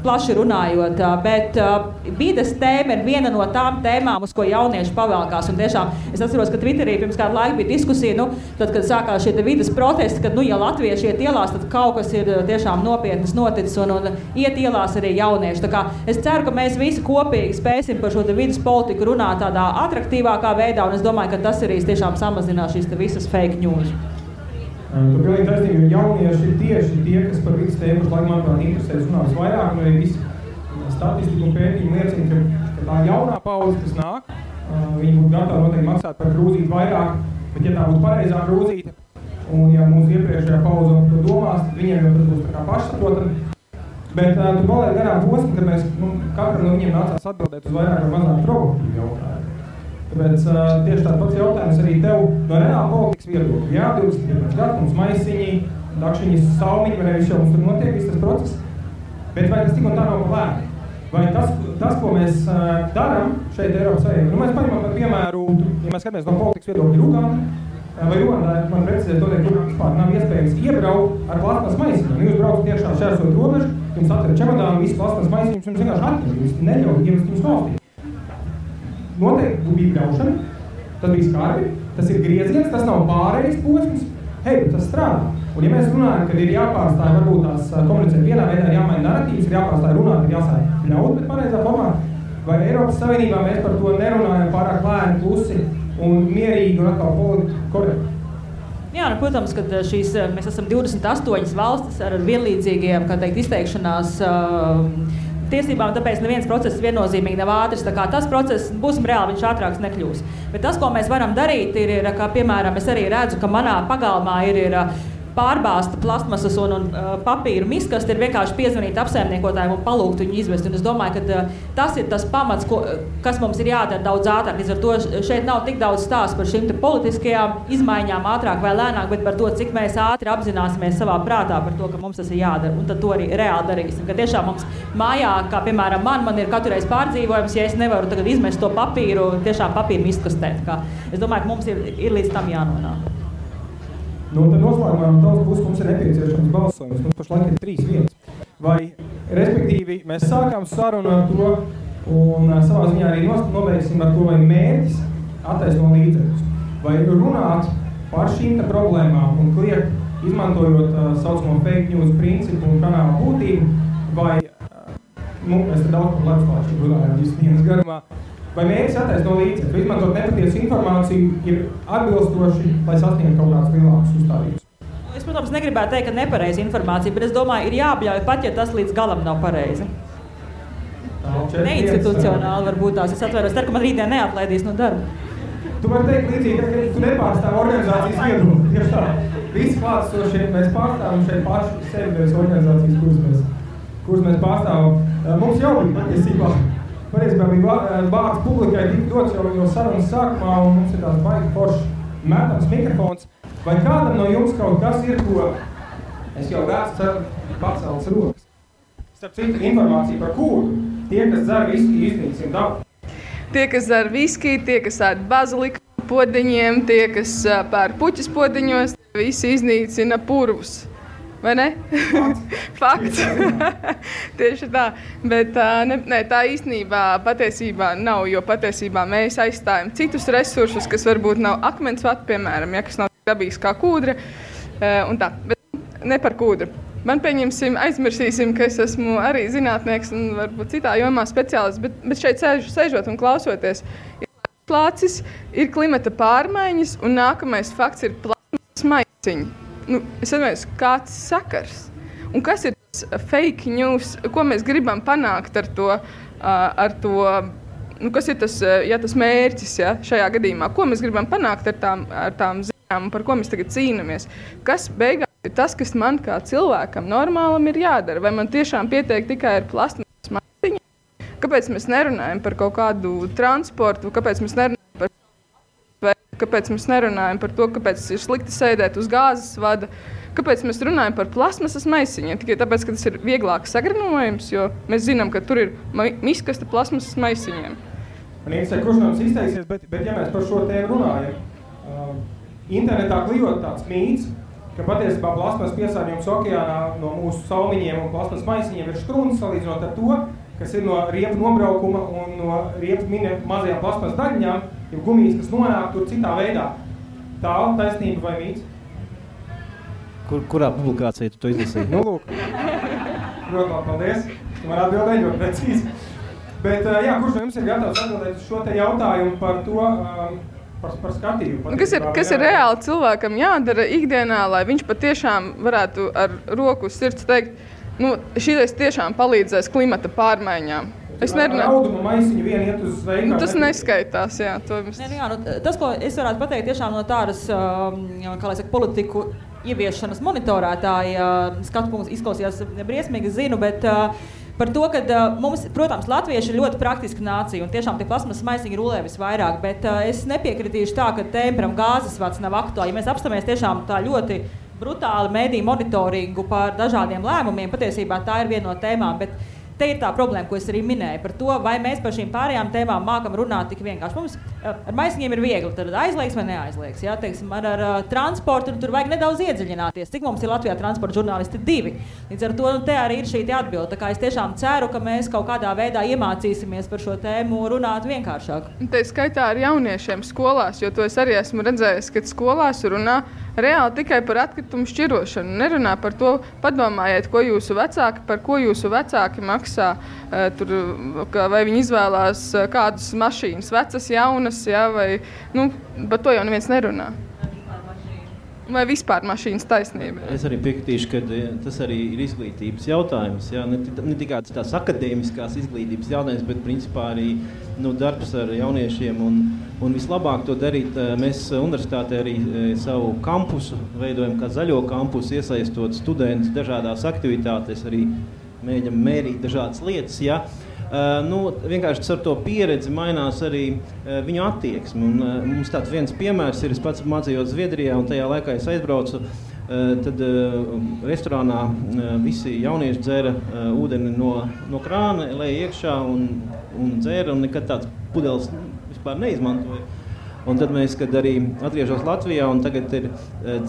plaši runājot, bet vides tēma ir viena no tām tēmām, uz ko jaunieši pavalkās. Un tiešām, es atceros, ka Twitterī pirms kādu laiku bija diskusija, tad, kad sākās šie vides protesti, kad, ja latvieši iet ielās, tad kaut kas ir tiešām nopietnas noticis un iet ielās arī jaunieši. Tā kā es ceru, ka mēs visi kopīgi spēsim par šo vides politiku runāt tādā atraktīvākā veidā, un es domāju, ka tas arī tiešām samazinās šīs visas fake news. Tur pilnīgi taisnība, jo jaunieši ir tieši tie, kas par vidas tēmu pašlaik, manuprāt, interesēs runās vairāk, un arī visi statistika un pētījumi liecina, ka tā jaunā paudze, kas nāk, viņi būtu gatavi noteikti maksāt par krūzīti vairāk, bet ja tā būtu pareizā krūzīte, un ja mūsu iepriekšējā paudze to domās, tad viņiem jau tas būs tā kā pašsaprotami. Bet tu paliek garām posmu, kad mēs katram no viņiem nācās atbildēt uz vairāk vai mazāk provokatīvu jautājumu. Tāpēc tieši tāds pats jautājums arī tev no reāla politikas viedokļa. Jā, 21. gads, mums maisiņi, dakšiņas, salmiņi, vai viss jau mums tur notiek, viss tas process. Bet vai tas tik un tā nav pa lēni? Vai tas, ko mēs darām šeit Eiropas Savienībā? Mēs paņemam par piemēru, ja mēs skatāmies no politikas viedokļa Uganda, vai Ugandā, man precizēt to teikt, kur vispār nav iespējams iebraukt ar plasmas maisiņiem. Jūs braucat iekšā šķērsot robežu, jums atver čemodānu, visu plasmas maisiņus, jums vienkārši atņem, jūs neļauj ievest jums valstī. Noteikti bija bļaušana, tas bija skarbi, tas ir grieziens, tas nav pārējais posms, tas strādā. Un ja mēs runājam, kad ir jāpārstāj varbūt tās komunicēt vienā veidā, jāmaina narratīvas, ir jāpārstāj runāt, ir jāsāj ļaut, bet pareizā formā, vai Eiropas Savienībā mēs par to nerunājam pārāk lēni, klusi un mierīgi un atkal politiski korekti? Jā, protams, ka mēs esam 28 valstis ar vienlīdzīgiem, kā teikt, izteikšanās tiesībām, tāpēc neviens process viennozīmīgi nav ātrs, tā kā tas process, būsim reāli, viņš ātrāks nekļūs. Bet tas, ko mēs varam darīt, ir kā piemēram, es arī redzu, ka manā pagalmā ir pārbāzta plastmasas un papīru miskas, ir vienkārši piezvanīt apsaimniekotājiem un palūgt viņu izvest. Un es domāju, ka tas ir tas pamats, kas mums ir jādara daudz ātrāk. Līdz ar to šeit nav tik daudz stāsts par šīm politiskajām izmaiņām ātrāk vai lēnāk, bet par to, cik mēs ātri apzināsimies savā prātā par to, ka mums tas ir jādara. Un tad to arī reāli darīsim. Ka tiešām mums mājā, kā piemēram man ir katru reizi pārdzīvojums, ja es nevaru tagad izmest to papīru, tiešām papīru miskastēt. Es domāju, ka mums ir līdz tam jānonāk. Tad noslēgumā no tavas puses mums ir nepieciešams balsojums. Mums pašlaik ir 3 vietas. Vai, respektīvi, mēs sākām sarunu ar to un savā ziņā arī nobeigsim ar to, vai mērķis attaisno līdzekļus. Vai runāt par šīm problēmām un kliegt, izmantojot saucamo fake news principu un kanāla būtību, vai, mēs te daudz par leduslāčiem runājām visas dienas garumā, vai mērķis attaisno līdzekļus, vai izmantot nepatiesu informāciju ir atbilstoši, lai sasniegtu kaut kādas lielākas uzstādības? Es, protams, negribētu teikt, ka nepareiza informācija, bet es domāju, ir jābļauj pat, ja tas līdz galam nav pareizi. Neinstitucionāli varbūt tās. Es atveros, ka man rītdien neatlaidīs no darba. Tu vari teikt līdzīgi, ka tu nepārstāv organizācijas viedokli. Tieši tā. Visi klātesošie mēs pārstāvam šeit paši sevi bez organizācijas, kuras mēs pārstāvam. Mums jau bija patiesībā. Pareizībā bija vārds publikai tik dots jau sarunas sākumā, un mums ir tās baigi forši metams mikrofons. Vai kādam no jums kaut kas ir, ko es jau redzu paceltas rokas? Starp citu informāciju par kūru. Tie, kas dzer viskiju, iznīcina dabu. Tie, kas dzer viskiju, tie, kas ēd baziliku podeņiem, tie, kas pērk puķis podeņos, visi iznīcina purvus. Vai ne? Fakts. Tieši tā. Bet tā īstenībā patiesībā nav, jo patiesībā mēs aizstājam citus resursus, kas varbūt nav akmensvati, piemēram, kas nav dabīgs kā kūdra. Un tā. Bet ne par kūdru. Man pieņemsim, aizmirsīsim, ka es esmu arī zinātnieks un varbūt citā jomā speciālists, bet šeit sēžot un klausoties, ir plācis, ir klimata pārmaiņas un nākamais fakts ir plasmas maisiņi. Es domāju, kāds sakars? Un kas ir tas fake news, ko mēs gribam panākt ar to kas ir tas mērķis šajā gadījumā? Ko mēs gribam panākt ar tām ziņām un par ko mēs tagad cīnamies? Kas beigās ir tas, kas man kā cilvēkam normālam ir jādara? Vai man tiešām pietiek tikai ar plasmas maisiņu? Kāpēc mēs nerunājam par kaut kādu transportu? Kāpēc mēs nerunājam par to, kāpēc ir slikti sēdēt uz gāzes vada? Kāpēc mēs runājam par plasmasas maisiņiem? Tikai tāpēc, ka tas ir vieglāk sagrinojums, jo mēs zinām, ka tur ir miskasta plasmasas maisiņiem. Man interesē, kurš no mums izteiksies, bet ja mēs par šo tēmu runājam, internetā klijot tāds mīts, ka patiesībā plasmas piesārņojums okeānā no mūsu salmiņiem un plasmas maisiņiem ir štrūns salīdzinot ar to, kas ir no riepu nobraukuma un no riepu mazajām plasmas daļiņām, jau gumijas, kas nonāk tur citā veidā. Tā taisnība vai mīts? Kurā publikācijā tu to izlasīji? Lūk. Protams, paldies. Tu man atbildēji ļoti precīzi. Bet, kurš no jums ir gatavs atbildēt uz šo te jautājumu par to, par skatījumu. Kas ir reāli cilvēkam jādara ikdienā, lai viņš patiešām varētu ar roku uz sirds teikt, šis tiešām palīdzēs klimata pārmaiņām. Es nerunāju. Rauduma maisiņu vien iet uz veikalu. Tas neskaitās, jā. Tas, ko es varētu pateikt tiešām no tādas, kā lai saka, politiku ieviešanas monitorētāja skatu punkts izklausījās briesmīgi, zinu, bet par to, ka mums, protams, latvieši ir ļoti praktiska nācija un tiešām tie plasmas maisiņi rulē visvairāk, bet es nepiekritīšu tā, ka tēmperam gāzes vats nav aktuāli. Ja mēs apstāmies tiešām tā ļoti brutāli mediju monitoringu par dažādiem lēmumiem, patiesībā tā ir viena no tēmām, bet te ir tā problēma, ko es arī minēju par to, vai mēs par šīm pārējām tēmām mākam runāt tik vienkārši. Mums ar maisiņiem ir viegli, tad aizliegs vai neaizliegs. Jā, teiksim, ar transportu tur vajag nedaudz iedziļināties. Cik mums ir Latvijā transporta žurnālisti 2? Līdz ar to te arī ir šī atbilde. Tā kā es tiešām ceru, ka mēs kaut kādā veidā iemācīsimies par šo tēmu runāt vienkāršāk. Te skaitā ar jauniešiem skolās, jo to es arī esmu redzējis, ka skolās runā reāli tikai par atkritumu šķirošanu. Nerunā par to, padomājiet, par ko jūsu vecāki maksā. Vai viņi izvēlās kādas mašīnas, vecas, jaunas, jā, vai par to jau neviens nerunā. Vai vispār mašīnas taisnība? Es arī piekritīšu, ka tas arī ir izglītības jautājums. Jā, ne tikai tās akadēmiskās izglītības jautājums, bet principā arī darbs ar jauniešiem. Un vislabāk to darīt, mēs universitātē arī savu kampusu veidojam kā zaļo kampusu, iesaistot studentus dažādās aktivitātēs, arī mēģinam mērīt dažādas lietas. Ja? Vienkārši ar to pieredzi mainās arī viņu attieksmi. Mums tāds viens piemērs ir, es pats mācījos Zviedrijā, un tajā laikā es aizbraucu, tad restorānā visi jaunieši dzēra ūdeni no krāna, lēja iekšā un dzēra, un nekad tāds pudeles vispār neizmantoja. Un tad mēs, kad arī atgriežos Latvijā, un tagad ir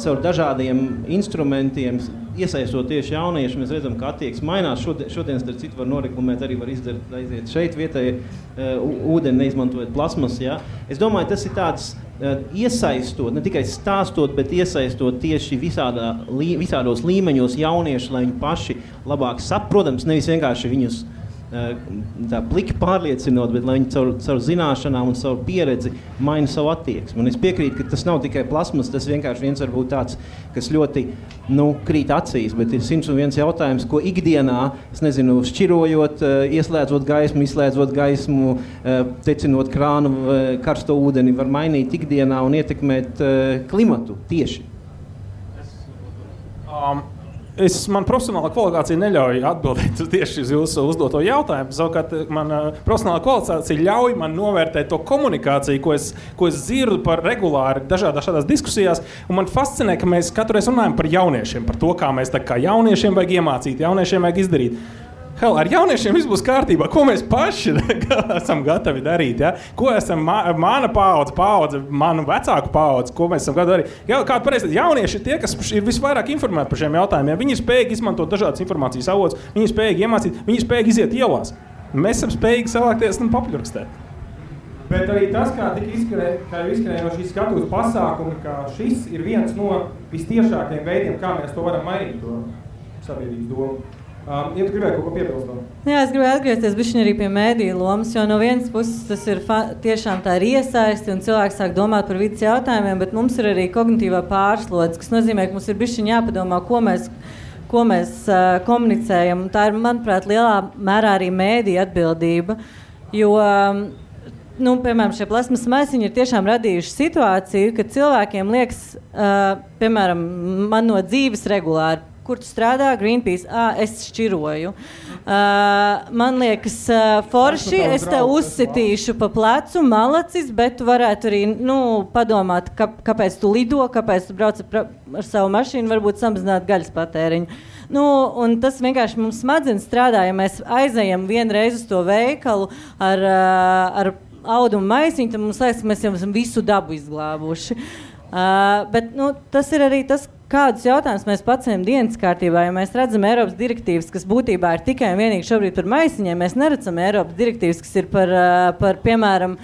caur dažādiem instrumentiem, iesaistot tieši jaunieši, mēs redzam, ka attieksme mainās. Šodien, starp citu, var noreklamēt, arī var aiziet šeit vietai ūdeni, neizmantojot plasmas. Ja? Es domāju, tas ir tāds iesaistot, ne tikai stāstot, bet iesaistot tieši visādos līmeņos jaunieši, lai viņi paši labāk protams, nevis vienkārši viņus tā pliki pārliecinot, bet lai viņi caur zināšanām un savu pieredzi maina savu attieksmi. Un es piekrītu, ka tas nav tikai plasmas, tas vienkārši viens varbūt tāds, kas ļoti krīt acīs, bet ir 101 jautājums, ko ikdienā, es nezinu, šķirojot, ieslēdzot gaismu, izslēdzot gaismu, tecinot krānu, karsto ūdeni, var mainīt ikdienā un ietekmēt klimatu tieši. Man profesionālā kvalifikācija neļauj atbildēt tieši uz jūsu uzdoto jautājumu. Savukārt, man profesionālā kvalifikācija ļauj man novērtēt to komunikāciju, ko es dzirdu par regulāri dažādās diskusijās. Un man fascinē, ka mēs katru reizi runājam par jauniešiem, par to, kā mēs kā jauniešiem vajag iemācīt, jauniešiem vajag izdarīt. Ar jauniešiem viss būs kārtībā. Ko mēs paši esam gatavi darīt? Ja? Ko esam mana paudze, manu vecāku paudze, ko mēs esam gatavi darīt? Kāda pareizi, jaunieši ir tie, kas ir visvairāk informēti par šiem jautājumiem. Viņi ir spējīgi izmantot dažādas informācijas avotus, viņi ir spējīgi iemācīt, viņi ir spējīgi iziet ielās. Mēs esam spējīgi savākties un papuļrakstēt. Bet arī tas, kā izskanēja no šīs skatuves pasākumi, ka šis ir viens no vistiešākajiem veidiem, kā mēs to varam mainīt, to sabiedrības domu. Ja tu gribēji kaut ko piebilst? Jā, es gribēju atgriezties bišķiņ arī pie mēdīju lomas, jo no vienas puses tas ir tiešām tā ir iesaisti un cilvēki sāk domāt par vidas jautājumiem, bet mums ir arī kognitīvā pārslodze, kas nozīmē, ka mums ir bišķiņ jāpadomā, ko mēs komunicējam. Un tā ir, manuprāt, lielā mērā arī mēdīja atbildība, jo piemēram, šie plasmas maisiņi ir tiešām radījuši situāciju, kad cilvēkiem liekas, piemēram, man no dzīves regulāri, kur tu strādā, Greenpeace, es šķiroju. Man liekas, forši, es te uzsitīšu pa plecu, malacis, bet tu varētu arī padomāt, kāpēc tu lido, kāpēc tu brauc ar savu mašīnu, varbūt samazināt gaļas patēriņu. Un tas vienkārši mums smadzenes strādā, ja mēs aizejam vienreiz uz to veikalu ar audumu maisiņu, tad mums liekas, ka mēs jau esam visu dabu izglābuši. Bet tas ir arī tas, kādus jautājumus mēs paceļam dienas kārtībā, ja mēs redzam Eiropas direktīvas, kas būtībā ir tikai un vienīgi šobrīd par maisiņiem, mēs neredzam Eiropas direktīvas, kas ir par piemēram,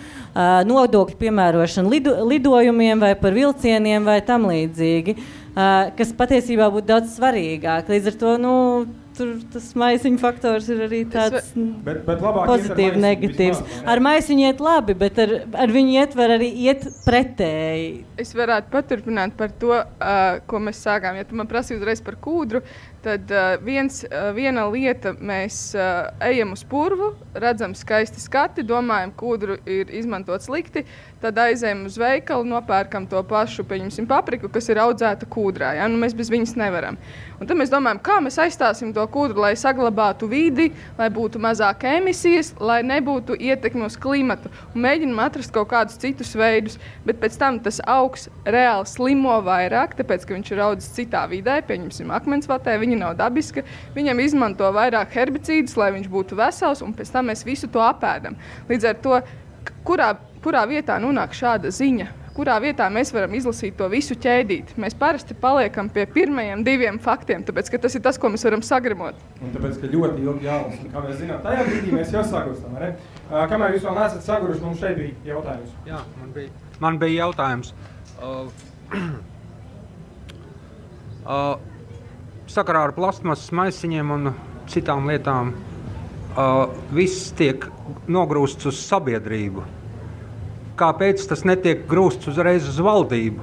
nodokļu piemērošanu lidojumiem vai par vilcieniem vai tam līdzīgi, kas patiesībā būtu daudz svarīgāk. Līdz ar to, tur tas maisiņu faktors ir arī tāds bet pozitīvi, negatīvs. Ar maisiņu iet labi, bet ar viņu ietver arī iet pretēji. Es varētu paturpināt par to, ko mēs sākām. Ja tu man prasīji uzreiz par kūdru, tad viena lieta, mēs ejam uz purvu, redzam skaisti skati, domājam, kūdru ir izmantot slikti, tad aizējam uz veikalu, nopērkam to pašu, pieņemsim, papriku, kas ir audzēta kūdrā. Ja? Nu, mēs bez viņas nevaram. Un tad mēs domājam, kā mēs aizstāsim to kūdru, lai saglabātu vidi, lai būtu mazāk emisijas, lai nebūtu ietekmi uz klimatu. Un mēģinam atrast kaut kādus citus veidus, bet pēc tam tas augs reāli slimo vairāk, tāpēc, ka viņš ir audzis citā vidē, pieņemsim, akmensvatē, viņa nav dabiska, viņam izmanto vairāk herbicīdus, lai viņš būtu vesels, un pēc tam mēs visu to apēdam. Līdz ar to, kurā vietā nonāk šāda ziņa, kurā vietā mēs varam izlasīt to visu ķēdīt. Mēs parasti paliekam pie pirmajiem 2 faktiem, tāpēc, ka tas ir tas, ko mēs varam sagremot. Un tāpēc, ka ļoti ilgi jālas, un kā mēs zinām, tajā brīdī mēs jau sagurstam, ne? Kamēr jūs vēl neesat saguruši, mums šeit bija jautājums. Jā, man bija jautājums. Sakarā ar plastmasas maisiņiem un citām lietām viss tiek nogrūsts uz sabiedrību. Kāpēc tas netiek grūsts uzreiz uz valdību?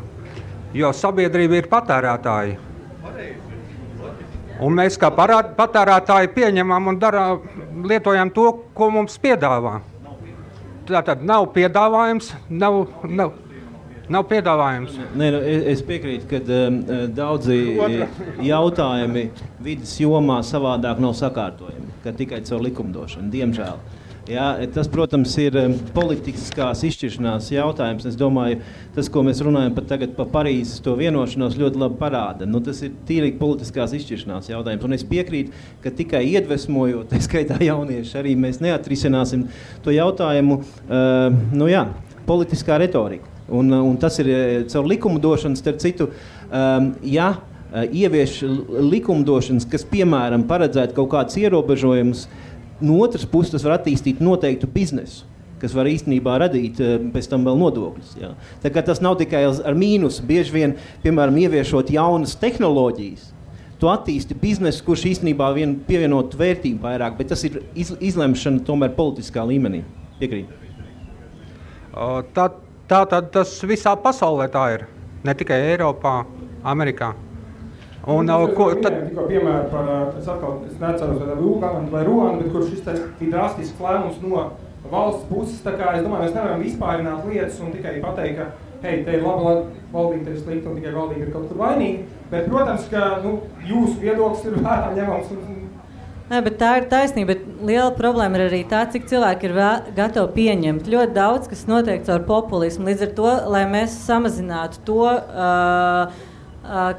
Jo sabiedrība ir patērētāji. Un mēs kā patērētāji pieņemam un lietojam to, ko mums piedāvā. Tātad nav piedāvājums, nav piedāvājums. Nē, es piekrītu, ka daudzi jautājumi vidas jomā savādāk nav sakārtojami, ka tikai caur likumdošanu, diemžēl. Jā, tas, protams, ir politiskās izšķiršanās jautājums. Es domāju, tas, ko mēs runājam pat tagad par Parīzes to vienošanos, ļoti labi parāda. Nu, tas ir tīri politiskās izšķiršanās jautājums. Un es piekrītu, ka tikai iedvesmojot, tā skaitā jaunieši, arī mēs neatrisināsim to jautājumu, politiskā retorika. Un tas ir caur likumdošanas, starp citu, ievieš likumdošanas, kas, piemēram, paredzētu kaut kādus ierobežojumus, no otras puses tas var attīstīt noteiktu biznesu, kas var īstenībā radīt pēc tam vēl nodokļus. Jā. Tā kā tas nav tikai ar mīnusu, bieži vien, piemēram, ieviešot jaunas tehnoloģijas, tu attīsti biznesu, kurš īstenībā vien pievienot vērtību vairāk, bet tas ir izlemšana tomēr politiskā līmenī. Piekrīt. Tātad tas visā pasaulē tā ir, ne tikai Eiropā, Amerikā. Un, tikko piemēru par, es neceros vai Ruandu, bet kur šis ir drastisks lēmums no valsts puses, tā kā es domāju, mēs nevaram vispārināt lietas un tikai pateikt, ka hei, te ir laba valdība, te ir slikta un tikai valdība ir kaut kur vainīga, bet, protams, ka jūsu viedoklis ir vērā ņemams. Nē, bet tā ir taisnība, bet liela problēma ir arī tā, cik cilvēki ir gatavi pieņemt. Ļoti daudz, kas notiek caur populismu, līdz ar to, lai mēs samazinātu to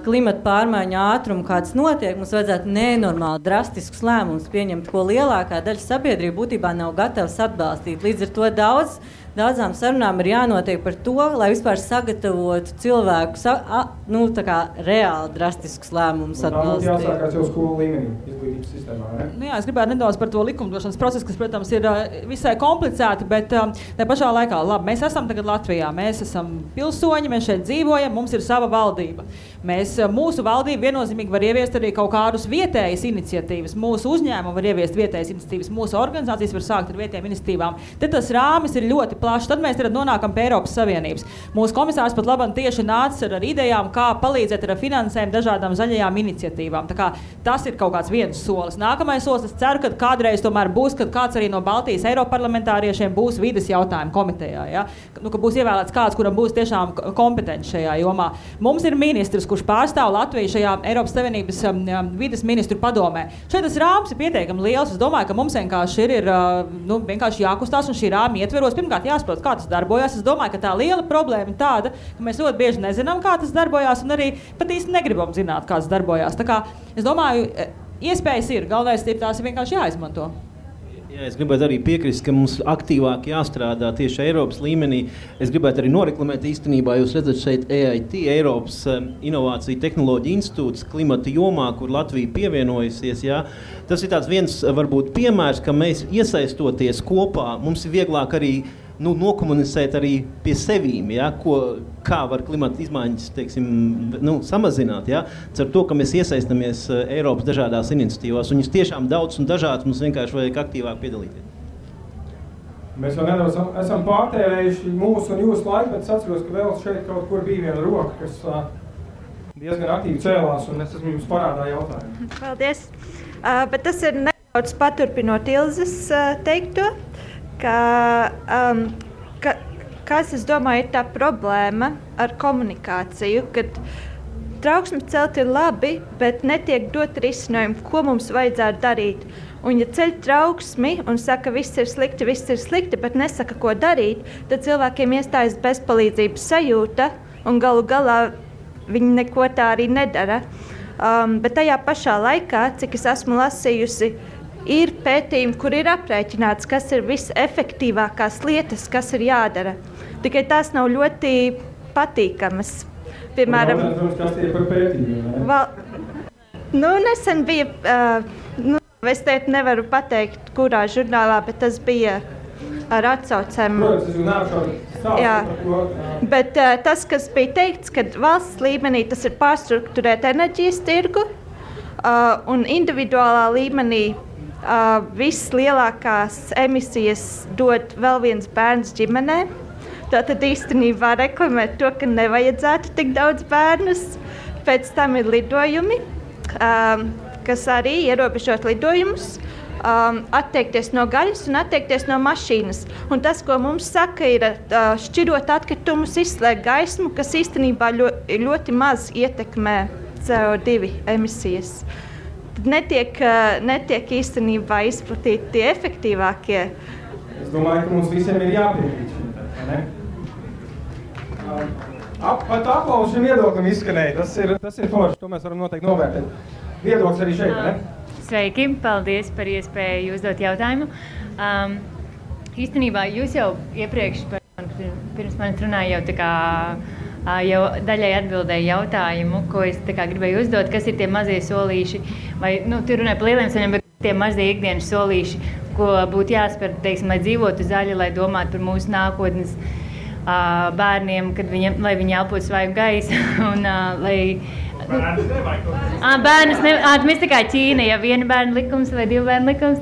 klimata pārmaiņu ātrumu, kāds notiek, mums vajadzētu nenormāli drastiskus lēmumus pieņemt, ko lielākā daļa sabiedrība būtībā nav gatavs atbalstīt. Līdz ar to daudzām sarunām ir jānotiek par to, lai vispār sagatavotu cilvēku reāli drastiskus lēmumus atbalstīt. Tā jāsākās jau skolu līmenī, izglītības sistēmā, ne? Nu jā, es gribētu nedaudz par to likumdošanas procesu, kas, protams, ir visai komplicēti, bet tā pašā laikā, labi, mēs esam tagad Latvijā, mēs esam pilsoņi, mēs šeit dzīvojam, mums ir sava valdība. Mūsu valdība viennozīmīgi var ieviest arī kaut kādus vietējas iniciatīvas, mūsu uzņēmumi var ieviest vietējas iniciatīvas, mūsu organizācijas var sākt ar vietējām iniciatīvām. Te tas rāmis ir ļoti plašs, tad mēs nonākam pie Eiropas Savienības. Mūsu komisārs pat labam tieši nāca ar idejām, kā palīdzēt ar finansējumu dažādām zaļajām iniciatīvām. Tā kā tas ir kaut kāds viens solis. Nākamais solis, es ceru, ka kādreiz tomēr būs, kad kāds arī no Baltijas Eiroparlamentāriešiem būs vides jautājumu komitejā, ja? Ka būs ievēlēts kāds, kuram būs tiešām kompetents šajā jomā. Mums ir ministrs, kurš pārstāv Latviju šajā Eiropas Savienības vides ministru padomē. Šeit tas rāms ir pietiekami liels. Es domāju, ka mums vienkārši ir vienkārši jākustās un šī rāma ietveros. Pirmkārt jāsaprot, kā tas darbojas. Es domāju, ka tā liela problēma ir tāda, ka mēs ļoti bieži nezinām, kā tas darbojas un arī pat īsti negribam zināt, kā tas darbojas. Tā kā es domāju, iespējas ir. Galvenais ir tās vienkārši jāizmanto. Jā, es gribētu arī piekrist, ka mums aktīvāk jāstrādā tieši Eiropas līmenī. Es gribētu arī noreklamēt īstenībā, jūs redzat šeit EIT, Eiropas Inovāciju tehnoloģiju institūts klimata jomā, kur Latvija pievienojusies. Jā. Tas ir tāds viens, varbūt, piemērs, ka mēs iesaistoties kopā, mums ir vieglāk arī nokomunicēt arī pie sevīm, ja, kā var klimata izmaiņas, teiksim, samazināt, ja, ar to, ka mēs iesaistamies Eiropas dažādās iniciatīvās, un viņas tiešām daudz un dažādas, mums vienkārši vajag aktīvāk piedalīties. Mēs jau nedaudz esam pārtērējuši mūsu un jūsu laiku, bet es atceros, ka vēl šeit kaut kur bija viena roka, kas diezgan aktīvi cēlās, un es esmu jums parādā jautājumu. Paldies. Bet tas ir nedaudz paturpinot Ilzes teikto, kas, es domāju, ir tā problēma ar komunikāciju, kad trauksmes celt ir labi, bet netiek dot risinājumu, ko mums vajadzētu darīt. Un ja ceļ trauksmi un saka, viss ir slikti, bet nesaka, ko darīt, tad cilvēkiem iestājas bezpalīdzības sajūta un galu galā viņi neko tā arī nedara. Bet tajā pašā laikā, cik es esmu lasījusi, ir pētījumi, kur ir aprēķināts, kas ir visefektīvākās lietas, kas ir jādara. Tikai tās nav ļoti patīkamas. Piemēram, kas tie par pētījumiem? Nesen bija, es teikt nevaru pateikt, kurā žurnālā, bet tas bija ar atsaucēm. Bet tas, kas bija teikts, ka valsts līmenī tas ir pārstruktūrēt enerģijas tirgu un individuālā līmenī vislielākās emisijas dod vēl viens bērns ģimenē. Tātad īstenībā reklamēt to, ka nevajadzētu tik daudz bērnus. Pēc tam ir lidojumi, kas arī ierobežot lidojumus, atteikties no gaļas un atteikties no mašīnas. Un tas, ko mums saka, ir šķirot atkritumus, izslēgt gaismu, kas īstenībā ļoti maz ietekmē CO2 emisijas. Tad netiek īstenībā izplatīti tie efektīvākie. Es domāju, ka mums visiem ir jāpiekrīt šim, ne? Pat aplausu šim viedoklim izskanēja. Tas ir forši, to mēs varam noteikti novērtēt. Viedoklis arī šeit, ne? Sveiki, paldies par iespēju uzdot jautājumu. Īstenībā jūs jau iepriekš, pirms manis runāja, jau daļai atbildēja jautājumu, ko es gribēju uzdot, kas ir tie mazie solīši, vai, tu runāji par lieliem soļiem, bet tie mazie ikdienas solīši, ko būtu jāspēr, teiksim, lai dzīvotu zaļi, lai domātu par mūsu nākotnes bērniem, lai viņi elpotu svaigu gaisu, un lai... Bērnus nevajag. Mēs tā kā Ķīna, ja viena bērna likums vai divu bērnu likums.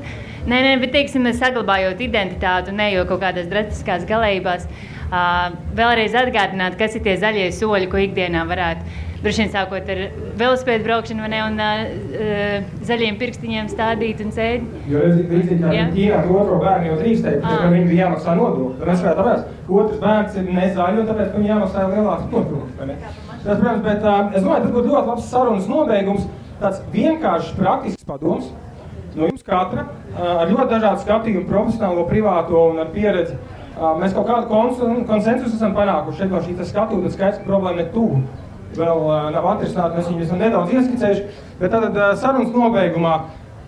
Nē, bet teiksim, saglabājot identitāti un nejo kaut kādās drastiskās galējībās, vēlreiz atgādināt, kas ir tie zaļie soļi, ko ikdienā varētu. Droši vien sākot ar velosipēdu braukšanu un zaļiem pirkstiņiem stādīt un sēdi. Jo līdzīgi kā Ķīnā otro bērnu jau drīkstēja, ka viņi bija jāmaksā nodokļi. Tad mēs varētu tāpēc, otrs bērns ir nezaļi un tāpēc, ka viņi jāmaksā lielāks nodokļi. Tas, protams, bet es domāju, tas būtu ļoti labs sarunas nobeigums, tāds vienkāršs praktisks padoms no jums katra, ar ļoti dažādu skatījumu, profesionālo, privāto un ar pieredzi. Mēs kaut kādu konsensusu esam panākuši šeit no šī skatūta, skaidrs, ka problēma ne tuvu. Vēl nav atrisināta, mēs viņu esam nedaudz ieskicējuši, bet tad sarunas nobeigumā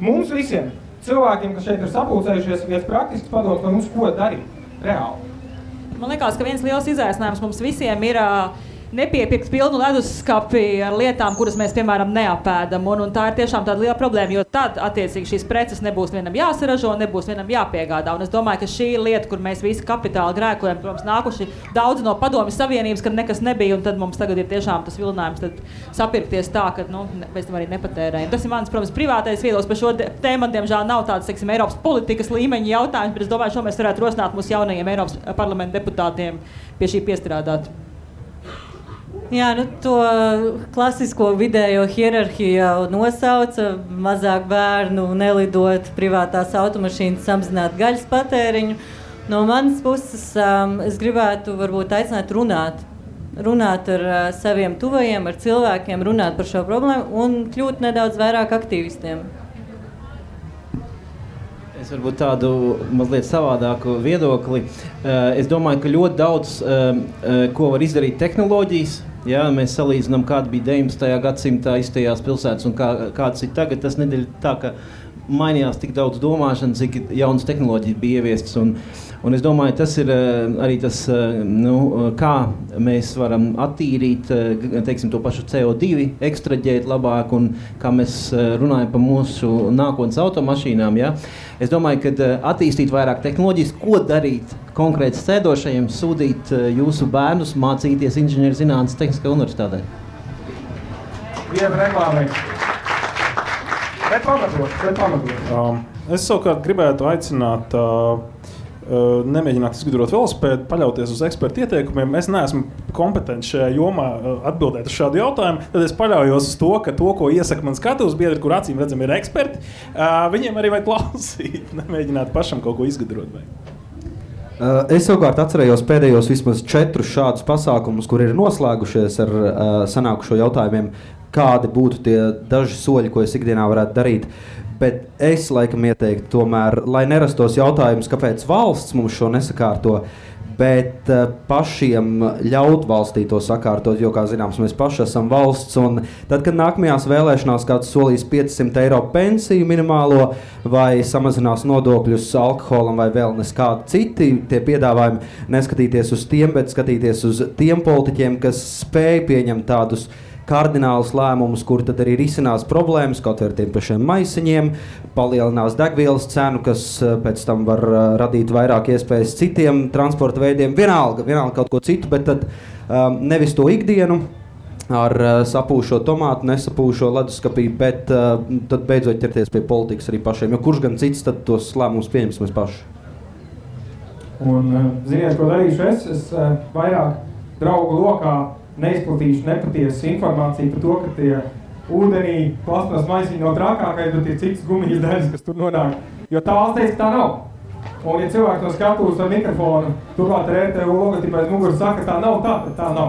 mums visiem cilvēkiem, kas šeit ir sapulcējušies, viens praktisks padoms no mums, ko darīt reāli. Man liekas, ka viens liels izaicinājums mums visiem ir nepiepirkt pilnu leduskapi ar lietām, kuras mēs, piemēram, neapēdam. Un tā ir tiešām tāda liela problēma, jo tad, attiecīgi, šīs preces nebūs vienam jāsaražo, nebūs vienam jāpiegādā. Un es domāju, ka šī ir lieta, kur mēs visi kapitāli grēkojam, protams, nākuši daudz no Padomju Savienības, kad nekas nebija, un tad mums tagad ir tiešām tas vilinājums tad sapirkties tā, ka, mēs tam arī nepatērējam. Tas ir mans, protams, privātais viedoklis par šo tēmu, diemžēl nav tāds, teiksim, Eiropas politikas līmeņa jautājums, bet es domāju, šo mēs varētu rosināt mūsu jaunajiem Eiropas parlamenta deputātiem pie šī piestrādāt. Jā, to klasisko vidējo hierarhiju jau nosauca, mazāk bērnu, nelidot, privātās automašīnas, samazināt gaļas patēriņu. No manas puses es gribētu varbūt aicināt runāt ar saviem tuvajiem, ar cilvēkiem, runāt par šo problēmu un kļūt nedaudz vairāk aktīvistiem. Es varbūt tādu mazliet savādāku viedokli. Es domāju, ka ļoti daudz, ko var izdarīt tehnoloģijas. Ja, mēs salīdzinām, kāda bija 19. gadsimtā iztajās pilsētas un kādas ir tagad. Tas nedēļ tā, ka mainījās tik daudz domāšana, cik jaunas tehnoloģijas bija ieviestas. Un es domāju, tas ir arī tas, kā mēs varam attīrīt, teiksim, to pašu CO2, ekstraģēt labāk, un kā mēs runājam par mūsu nākotnes automašīnām. Ja? Es domāju, ka attīstīt vairāk tehnoloģijas, ko darīt konkrēti sēdošajiem, sūdīt jūsu bērnus mācīties inženierzinātnes Tehniskajā universitātē. Viena reklāmē. Bet pamatot. Es savukārt gribētu aicināt nemēģināt izgudrot velosipēdu, paļauties uz ekspertu ieteikumiem. Es neesmu kompetents šajā jomā atbildēt uz šādu jautājumu. Tad es paļaujos uz to, ka to, ko iesaka man skatuves biedri, kur acīm redzam ir eksperti, viņiem arī vajag klausīt, nemēģināt pašam kaut ko izgudrot. Es savukārt atcerējos pēdējos vismaz 4 šādus pasākumus, kur ir noslēgušies ar sanākušo jautājumiem, kādi būtu tie daži soļi, ko es ikdienā varētu darīt. Bet es laikam ieteiktu tomēr, lai nerastos jautājums, kāpēc valsts mums šo nesakārto, bet pašiem ļaut valstī to sakārtot, jo, kā zināms, mēs paši esam valsts, un tad, kad nākamajās vēlēšanās kāds solīs 500 eiro pensiju minimālo vai samazinās nodokļus alkoholam vai vēl neskādi citi tie piedāvājumi, neskatīties uz tiem, bet skatīties uz tiem politiķiem, kas spēj pieņemt tādus kardinālus lēmumus, kur tad arī risinās problēmas, kaut ar tiem pašiem maisiņiem, palielinās degvielas cenu, kas pēc tam var radīt vairāk iespējas citiem transporta veidiem, vienalga kaut ko citu, bet tad nevis to ikdienu ar sapūšo tomātu, nesapūšo leduskapī, bet tad beidzot ķerties pie politikas arī pašiem, jo kurš gan cits tad tos lēmumus pieņems mēs paši. Un ziniet, ko darīšu es vairāk draugu lokā neizplatīšu nepatiesu informāciju par to, ka tie ūdenī plasmas maisiņi no trakākais, bet ir citas gumijas daļas, kas tur nonāk. Jo tā valsts teica, ka tā nav. Un ja cilvēki to skatūs ar mikrofonu, turklāt ar RTU logotipu aiz muguras saka, tā nav tā, tad tā nav.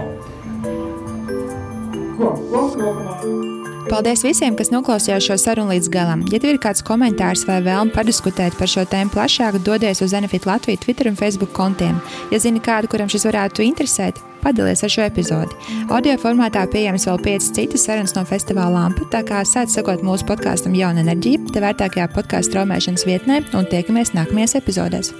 Paldies visiem, kas noklausījās šo sarunu līdz galam. Ja tev ir kāds komentārs vai vēlme padiskutēt par šo tēmu plašāk, dodies uz Enefit Latviju Twitter un Facebook kontiem. Ja zini kādu, kuram šis varētu interesēt, padalies ar šo epizodi. Audio formātā pieejams vēl 5 citas sarunas no festivāla Lampa, tā kā sāc sekot mūsu podkastam Jauna enerģija, te vērtākajā podkastu straumēšanas vietnē un tiekamies nākamajās epizodēs.